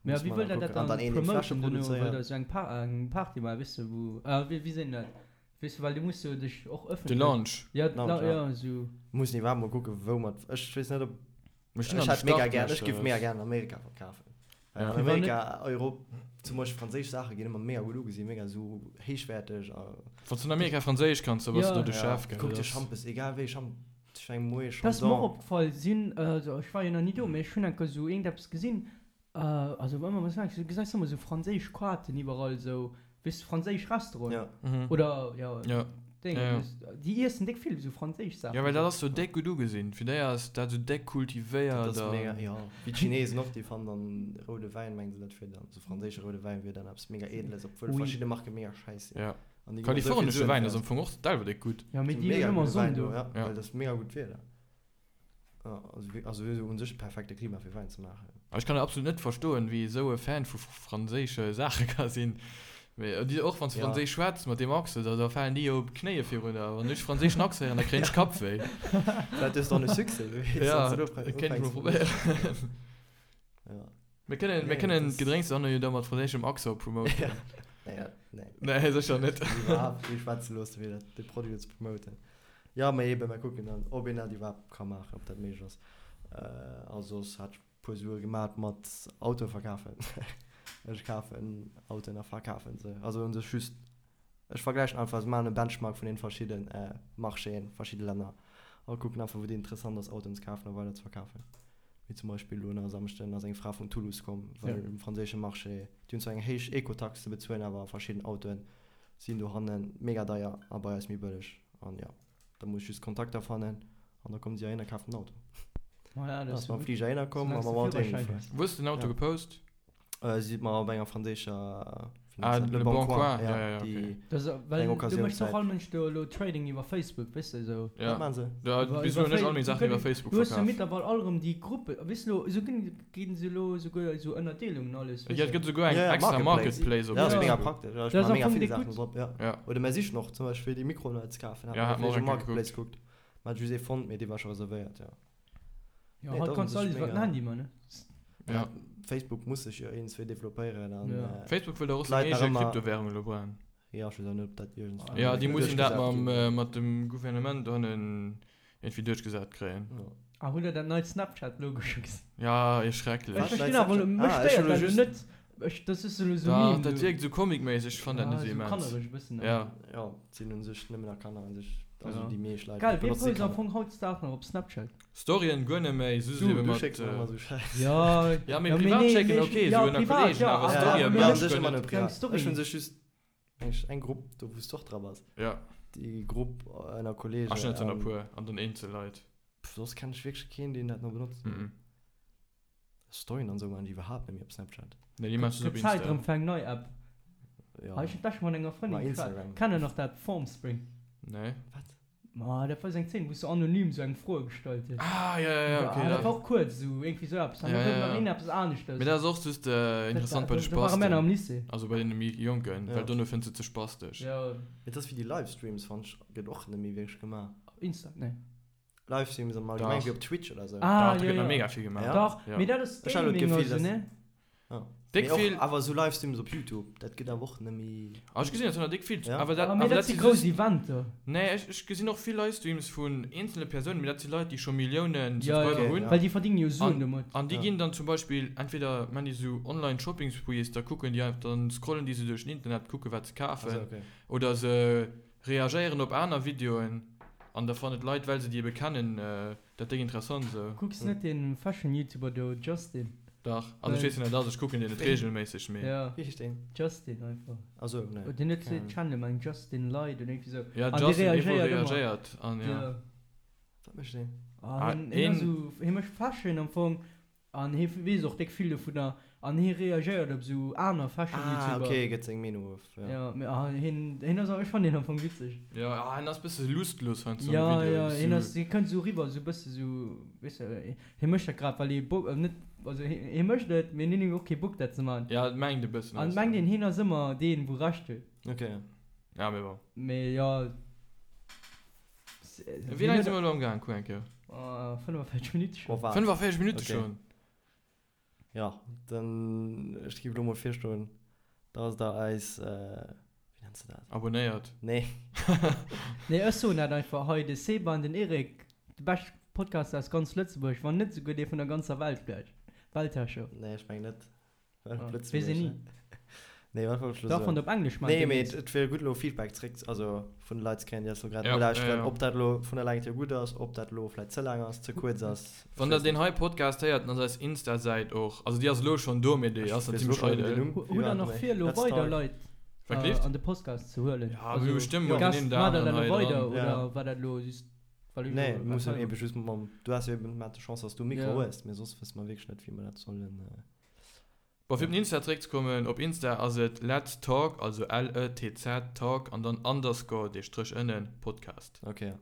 Mä wéi wëllt der dat dann promoten dono? Wëllt der esou eng Party maachen, weess de, wou, wéi seet een dat? Weess de, well du muss jo dech och De ëffentlech. Launch. Ja, de Launch, ja, esou. Mussen iwwerhaapt mol kucken, wou mer, ech weess net, ob, Mir stinn ech an de hätt mega gär, ech giff Startlöcher. mega gär an Amerika verkafen. Well an Ja. Amerika, Europ, zum Beispill franséisch Saache ginn ëmmer mega gutt ugesinn, mega esou héichwäerteg a. Wann s du an Amerika Franséisch kanns, da bass du Ja. do de Ja, Chef, gell? kuck Dat dir ass. Schampes, egal wéi Champ, ech meng Moët Dat ass mer och Chandon. opgefall, sinn, also ech war jo nach ni do, mee ech hunn enker esou iergendeppes gesinn, Also ëmmer was du gesäis ëmmer sou franséisch Quaten iwwerall sou, weess de, franséisch Restauranten. Ja. Oder ja, Ja. Déngen, Ja, ja. weess de, déi iessen déck vill sou franséisch Saachen. Ja, well dat ass sou déck gutt ugesinn. Fir déi ass dat sou déck kultivéiert Dat ass a. mega, jo. Wéi d'Chinesen och, déi fannen dann roude Wäin, mengen se dat wier dann, sou franséische roude Wäin wier dann eppes mega Edeles, obwuel Oui. verschidde Marke mega schäiss sinn. Ja. An déi ginn och sou vill Kalifornesche Suen Wäin fir ass am Fong och selwer déck gutt. Ja, mee Sinn déi hunn mega ëmmer gudde Sonn Wäin do, do. ja, Ja. well dat ass mega gutt Wieder. Also un sech perfekte Klima fir Wäin ze maachen. Ech kann absolut net verstoen, wéi ee sou e Fan vu franséische Saache ka sinn. Mee och wann s de franséisch schwätz mat deem Accent, da falen déi jo op d'Knéie virun der. Wann ech franséischen Accent héieren, da kréien ech Kappwéi. Vläit hues de och e Succès, wie weess, Ja, dat kéint ech mol probéieren. Mir kënnen, mir kënnen d'Gedrénks dann jo da mat franséischem Accent promoten. Nee, nee. Nee, sécher net. Iwwerhaapt kee schwätze loosse fir dat, de Produit ze promoten. Jo, mee eben, mer kucken dann, ob een dat iwwerhaapt ka maachen, ob dat méiglech ass. A soss hat ech e puer Sue gemat mat Autoe verkafen. Ech kafen Autoen a verkafen se. Also u sech just, ech vergläichen einfach, ech maachen e Benchmark vun den verschidde Marchéen, verschidde Länner a kucken einfach, wou et interessant ass, Autoen ze kafen a weider ze verkafen. Wéi zum Beispill elo nach e Samschden ass eng Fra vun Toulouse komm, well um franséische Marché, déi hunn zwar eng héich Ecotax ze bezuelen, awer verschidden Autoen sinn dohanne mega deier a bei eis méi bëlleg. An jo, da muss ech just Kontakter fannen an da kommen si heihin a kafen den Auto. Voilà, Da dat ass ass mam gutt. Fliger heihinner komm a Soulaangs de mam Auto Führerschäin heemgefuer. hues. Wou hues de den Auto Ja. gepost? Si huet mer op enger franséischer, wéi Ah, nennt se dat, Le Le Bon Bon Coin, Coin, ja, ja, ja, ja, okay. déi Dat ass, eng well du méchs och Occasiounsäit. all Mënsch do elo Trading iwwer Facebook, weess de, esou. Ja. Wat maachen se? Ja, Iwwer, bis iwwer elo hunn ech Fa all meng du Saachen iwwer kënn, Facebook du hues jo verkaf. mittlerweil all erëm déi Gruppen, weess de elo, esou ginn, ginn se elo esouguer esou Ënnerdeelungen alles, Ja, weess et de. gëtt esouguer eng Ja, ja, extra Marketplace. Marketplace op Ja, ass mega Facebook. praktesch. Ja, ech Dat ass maache am mega Fong vill déck Saachen gutt. drop, ja. Ja. Oder mer sichen och zum Beispill fir déi Mikroen hei ze kafen, Ja, hat hat mer mer och op eng Kéier Marketplace gekuckt. gekuckt. Mer hat just ee fonnt, mee dee war scho reservéiert, ja. Ja, Nee, haut dat ass kanns du un alles sech iwwer den mega. Handy man, ne? Ja. Facebook muss sech jo iergendswéi developpéieren an Ja. Facebook wëll der och seng d'Leit nach eege ëmmer. Kryptowährung elo bréngen. Ja, ech weess awer net, ob dat iergendswéi Ja, déi mussen dat duerchgesat mam, ginn. mat dem Gouvernement dohannen iergendwéi duerchgesat kréien. Ja. Ah, hutt der dat neit Snapchat-Logo scho gesinn? Ja, Ech schrecklech. Wat? verstinn awer elo, mech Ah, ech stéiert hunn elo dat elo just. net. Ech, dat ass elo sou Dach, Meme dat do. wierkt sou comicméisseg, ech fannen dat Ja, net sou sou immens. kannereg e bëssen Ja. awer. Ja, et sinn u sech nëmmen nach Kanner u sech, also Ja. déi meescht Leit Geil, wee benotze post am Kanner. Fong hautdesdaags nach op Snapchat? Storyen guer net méi, soss Du, ebe du mat. schécks mer ëmmer sou Schäiss. Ja, Ja, mee ja, mee privat nee, schécken mee ech, ok, ja, sou ënner privat, Kollegen, ja, awer awer, Ja, Storyen mee mee u net mech sech guer ëmmer net. nëmme keng privat. Story. Ech hunn sech just eng, eng Grupp do, wou s du och dra bass. Ja. Déi Grupp ënner Ach, Kollege ech hunn net ënner an puer, an dann eenzel Leit. pff, soss kenn ech wierklech keen, deen dat nach benotzt. Mhm. Storyen an sou maachen déi iwwerhaapt net méi op Snapchat. Nee, déi maachen se op Gëtt Zäit Insta. erëm fir eng nei App. Ja. Ah, ech hunn d'lescht mat enger Ma Frëndin geschwat. Instagram. Kennt der nach dat Formspring? Nee. Wat? Ma dat war sou eng Zeen, wou s du anonym sou eng Froe gestallt hues. Ah, ja, ja, ja, okay. Ah, dat Dat, war och kuerz, sou iergendwéi sou eppes. An ja, da gouf ja, nach ja. een eppes aneschters. Mee dat ass och just Dat interessant war, bei de do ware mär nach Spasten. am Lycée. Also bei deene méi Jonken, Ja. well dono fënns de ze spastesch. Ja. Et ass wéi déi Livestreams, fannt ech, gëtt och net méi wierklech gemaach. Op Insta? Nee. Livestreams am Allgemengen, Dach. wéi op Twitch oder sou. Ah, Dach, do jo, gëtt nach jo. mega vill gemaach. Ja? Dach, Ja. mee dat ass Ech hat elo Gaming d'Gefill, oder sou, dass. ne? Ja. Déck Mee och, vill. awer sou Livestreams op Youtube, dat gëtt awer och net méi. Ah, ech gesinn dat nach déck vill. Ja? Awer dat, Ah, mee awer dat dat si si grouss just. Eventer. Nee, ech, ech gesinn och vill Livestreams vun eenzele Persounen, mee dat si Leit, déi scho Milliounen Ja, ja. Subscriber Okay, hunn. ja. Well déi verdéngen jo Suen An, domat. an déi Ja. ginn dann zum Beispill, entweder man déi sou Online Shopping Sprees, da kucken déi einfach, dann scrollen déi sou duerch den Internet, kucke wat se Also, kafen. okay. Oder se reagéieren op aner Videoen an da fannen d'Leit, well se déi ebe kennen, dat déck interessant esou. Kucks net dee Fashion-Youtuber do, Justin? Dach, also ech weess wien dat ass, ech kucken deen net regelméisseg, mee. Ja. Wéi heescht deen? Justin einfach. Ah sou, nee. Deen huet den Channel meng Justin Light oder iergendwéi sou. Ja, An dee Justin, dee wou reagéiert ëmmer. reagéiert an ja. Ja. Wat mécht deen? Ah, Ah, hien, hien ass een. sou, hie mécht Fashion am Fong an hie weess och déck vill dovunner an hie reagéiert op sou aner Ah, Fashion-Youtuber. okay, gëtt seng Meenung of, ja. Ja, mee ah, hien, hien ass, ech fannen hien am Fong witzeg. Ja, ah, hien ass bësse lustlos heiansdo an Ja, de ja, Videoen, hien sou. ass, hie kënnt sou riwwer, sou bësse sou, weess de, Hie mécht dat grad well hie Bock, net, also hie mécht et, mee hien huet och kee Bock dat ze man. Ja, et mengt e bëssen An mengt een hien ass ëmmer deen wou Recht huet. Ok. Ja, mee bon. Mee jo. Wéi laang si mer elo am gaang? Kuck eng Kéier. 45 Minutte Oh schonn. wat? 45 Minutte Ok. schonn? Jo, dann ech géif elo mol virschloen, dass der eis, wéi nenns de dat? Abonnéiert. Nee. Nee, ech soen dat einfach hei, de Seba an den Eric, de bescht Podcast aus ganz Lëtzebuerg, wann net souguer dee vun der ganzer Welt vläicht. Weltherrscher. Nee, ech mengen net. Well op Ah, Lëtzebuerg, weess een ni. ne? Nee, wat wollt ech elo Dach, wann soen? de op Englesch maachen Nee, mee deemnächst. et wier gutt elo Feedback zréck, also vun de Leit ze kréien, déi eis elo grad Ja, ja, nolauschteren, ja. ob dat elo vun der Längt hier gutt ass, ob dat elo vläicht ze laang ass, ze kuerz ass, ech Wann der weess deen net. hei Podcast héiert, dann ass eis Insta-Säit och, also déi ass elo schonn do, mee déi Ech ass nach weess elo zimmlech schonn net méi den eidel. Numm. Hu Wéi hutt war der den nach méi? vir elo Let's weider Talk. Leit Wat gleeft? an de Podcast ze huelen? Ja, mir Also hu bestëmmt mol Gässt, den een oder maacht der aneren dat elo hei weider dran. oder Ja. war dat elo just well ech Nee, elo mir mussen hei war? ebe just mam, du has jo eben mat de Chance, dass du e Mikro Ja. hues, mee soss wësse mer wierklech net, wéi mer dat sollen. Bon, fir op den Insta zeréckzekommen, op Insta ass et Let's Talk, also L-E-T-Z Talk an dann Underscore, dee Stréch ënnen, Podcast. Ok, ja.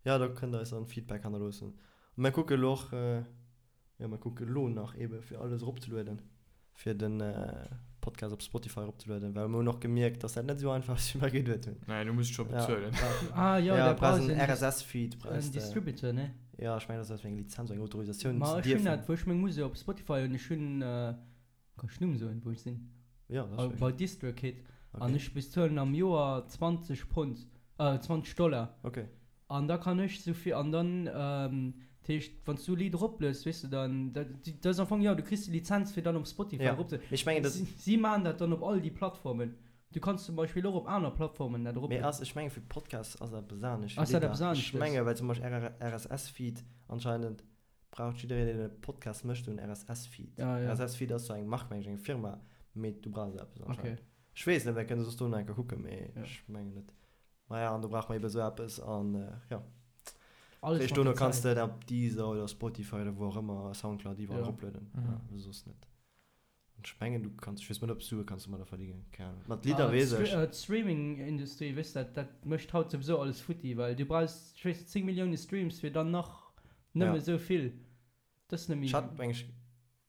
Jo, do kënnt der eis dann Feedback hannerloossen. A mir kucke lo och, jo, mir kucke lo nach ebe fir alles eropzelueden, fir de Podcast op Spotify eropzelueden, well mir hunn och gemierkt, dass dat net esou einfach ass, wéi mer geduet hunn. Nee, du muss scho Ja, bezuelen. Ah jo, ja, da brauchs brauchs en en RSS-Feed, brauchs en de. Distributor, ne? Ja, ech mengen, dat ass eng Lizenz, eng Autorisatioun Ma ze ech hunn dierfen. dat, wou ech meng Musek op Spotify hunn, ech hunn, kann ech Numm soen, wou ech sinn? Ja, dat ass Bei DistroKid. An Okay. ech bezuelen am Joer 20 Pond, 20 Dollar. Okay. An da kann ech souvill, an dann, dat heescht, wann s du e Lidd eroplues, weess de, dann, dat dat ass am Fong, jo, du kriss déi Lizenz fir dann op Spotify Ja, erop ze, mee ech mengen, dat. si si maachen dat dann op all déi Plattformen. Du kanns zum Beispill och op aner Plattformen dat Mee eroplueden. ass, ech menge fir Podcasts ass dat eppes anescht wéi Ass dat Lidder. eppes Ech aneschtes? menge well zum Beispill RSS-Feed anscheinend braucht jiddereen deen e Podcast mécht en RSS-Feed. Ah, ja. RSS-Feed ass sou eng Mark meng ech, eng Firma, mee du brauchs eppes anscheinend. Okay. Ech weess net, mir kënne soss dono eng Kéier kucken, mee Ja. ech mengen net. Maja, an do brauche mer ebe sou eppes an jo. Alles Réischt mat dono der kanns Zäit. de dat op Deezer oder Spotify oder wou och ëmmer, Soundcloud, iwwerall Ja. eroplueden. Mhm. Ja, soss net. An ech mengen du kanns, ech weess net ob Sue kanns domadder verdingen, keng Ahnung. Mat Lidder Ah, weess ech. D'Streaming-Industrie, weess dat, dat mécht haut souwisou alles futti, well du brauchs, ech weess net, 10 Millioune Streams fir dann nach nëmme Ja. sou vill. Dat ass net méi. Ech hat meng ech,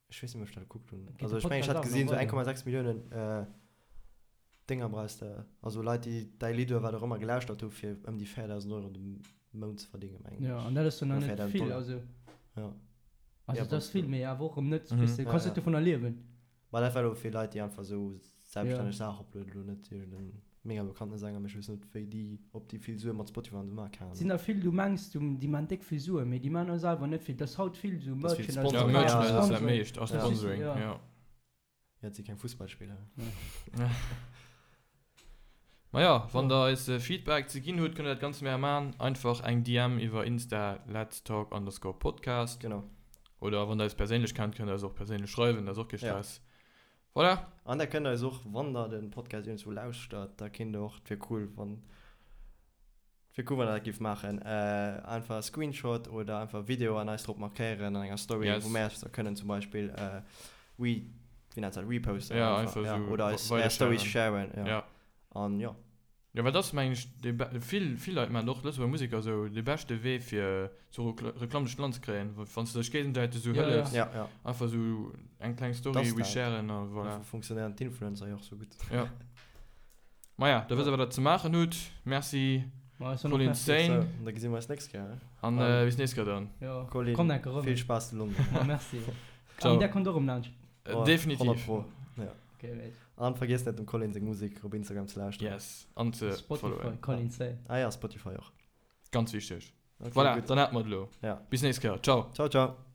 ech weess net méi ob ech dat gekuckt hunn. Geet Also de ech mengen ech Podcast hat auch nach gesinn sou weider? 1,6 Milliounen Dénger brauchs de, also Leit déi däi Lidd oder wat och ëmmer gelauschtert hu fir ëm déi 4.000 Euro de Mount ze verdingen mengen Ja, ech. an dat ass jo nach Oder net 4.000 vill, Dollar. also. Ja. Also Ja, dat ass vill, mee awer och erëm net, Mhm. weess de, Ja, kanns ja. net dovunner liewen. Ma dat war elo fir Leit déi einfach sou selbststänneg Ja. Saachen uploaden, elo net iergend en mega bekannte Sänger, mee ech weess net wéi déi, ob déi vill Sue mat Spotify an esou maachen, keng Et sinn Ahnung. der vill, du mengs du déi maan déck vill Suen, mee déi maan och selwer net vill. Dat ass haut vill sou Dat ass vill Merchandise, Ja, Sponsoring. Merchandise ass dat Sponsoring. meescht, a Ja. Sponsoring, Ja. ja. Ja, et si keng Fussballspiller. Maja, wann der eis Feedback ze ginn hutt, kënnt der dat ganz mär man. Einfach eng DM iwwer Insta, letstalk underscore podcast. Genau. Oder wann der eis perséinlech kennt, kënnt der eis och perséinlech schreiwen, dat ass och kee Ja. Stress. Voilà. An der kënnt eis och, wann der den Podcast iergendzwou lauschtert, da kinnt der och, et wier cool wann, et wier cool wann der dat giff maachen, einfach e Screenshot oder einfach e Video an eis drop markéieren an enger Story, Yes. wou mär eis da kënnen zum Beispill re, wéi nennt dat, reposten Ja, einfach, einfach ja, sou oder eis weider är Stories sharen. sharen, ja. Ja. An jo. Jo, well dat ass mengen ech dee be-, vill, vill Leit maachen och, Lëtzebuerger Museker esou, dee beschte Wee fir sou Rekl-, Reklamm duerch d'Land ze kréien, wa wann s de dech géigensäiteg esou Ja, ja. hëllefs, Ja, ja. einfach esou eng kleng Story Dat ass dat. resharen a voilà. Dofir funktionéieren d'Influencer jo och sou gutt. Ja. Maja, da wësst der wat der ze maachen hutt. Merci Ma ech soen och Colin Merci. Sane Sou, an da gesi mer eis nächst Kéier, ne? an An bis nächst Kéier dann. Jo, Colin, kommt enke rëm. vill Spaass zu London. Ma merci. Ciao. An där kommt och rëm laanscht. Oh, Definitiv. 100 pro. Ja. Okay, wéi. An vergiesst net dem Colin seng Musek op Instagram ze lauschteren. Yes, an ze Spotify, followen. Colin Sane. Ah ja, Spotify och. Ganz wichteg. Okay, Voilà, gutt. dann hat mer et elo. Ja. Bis nächst Kéier. Ciao. Ciao, ciao.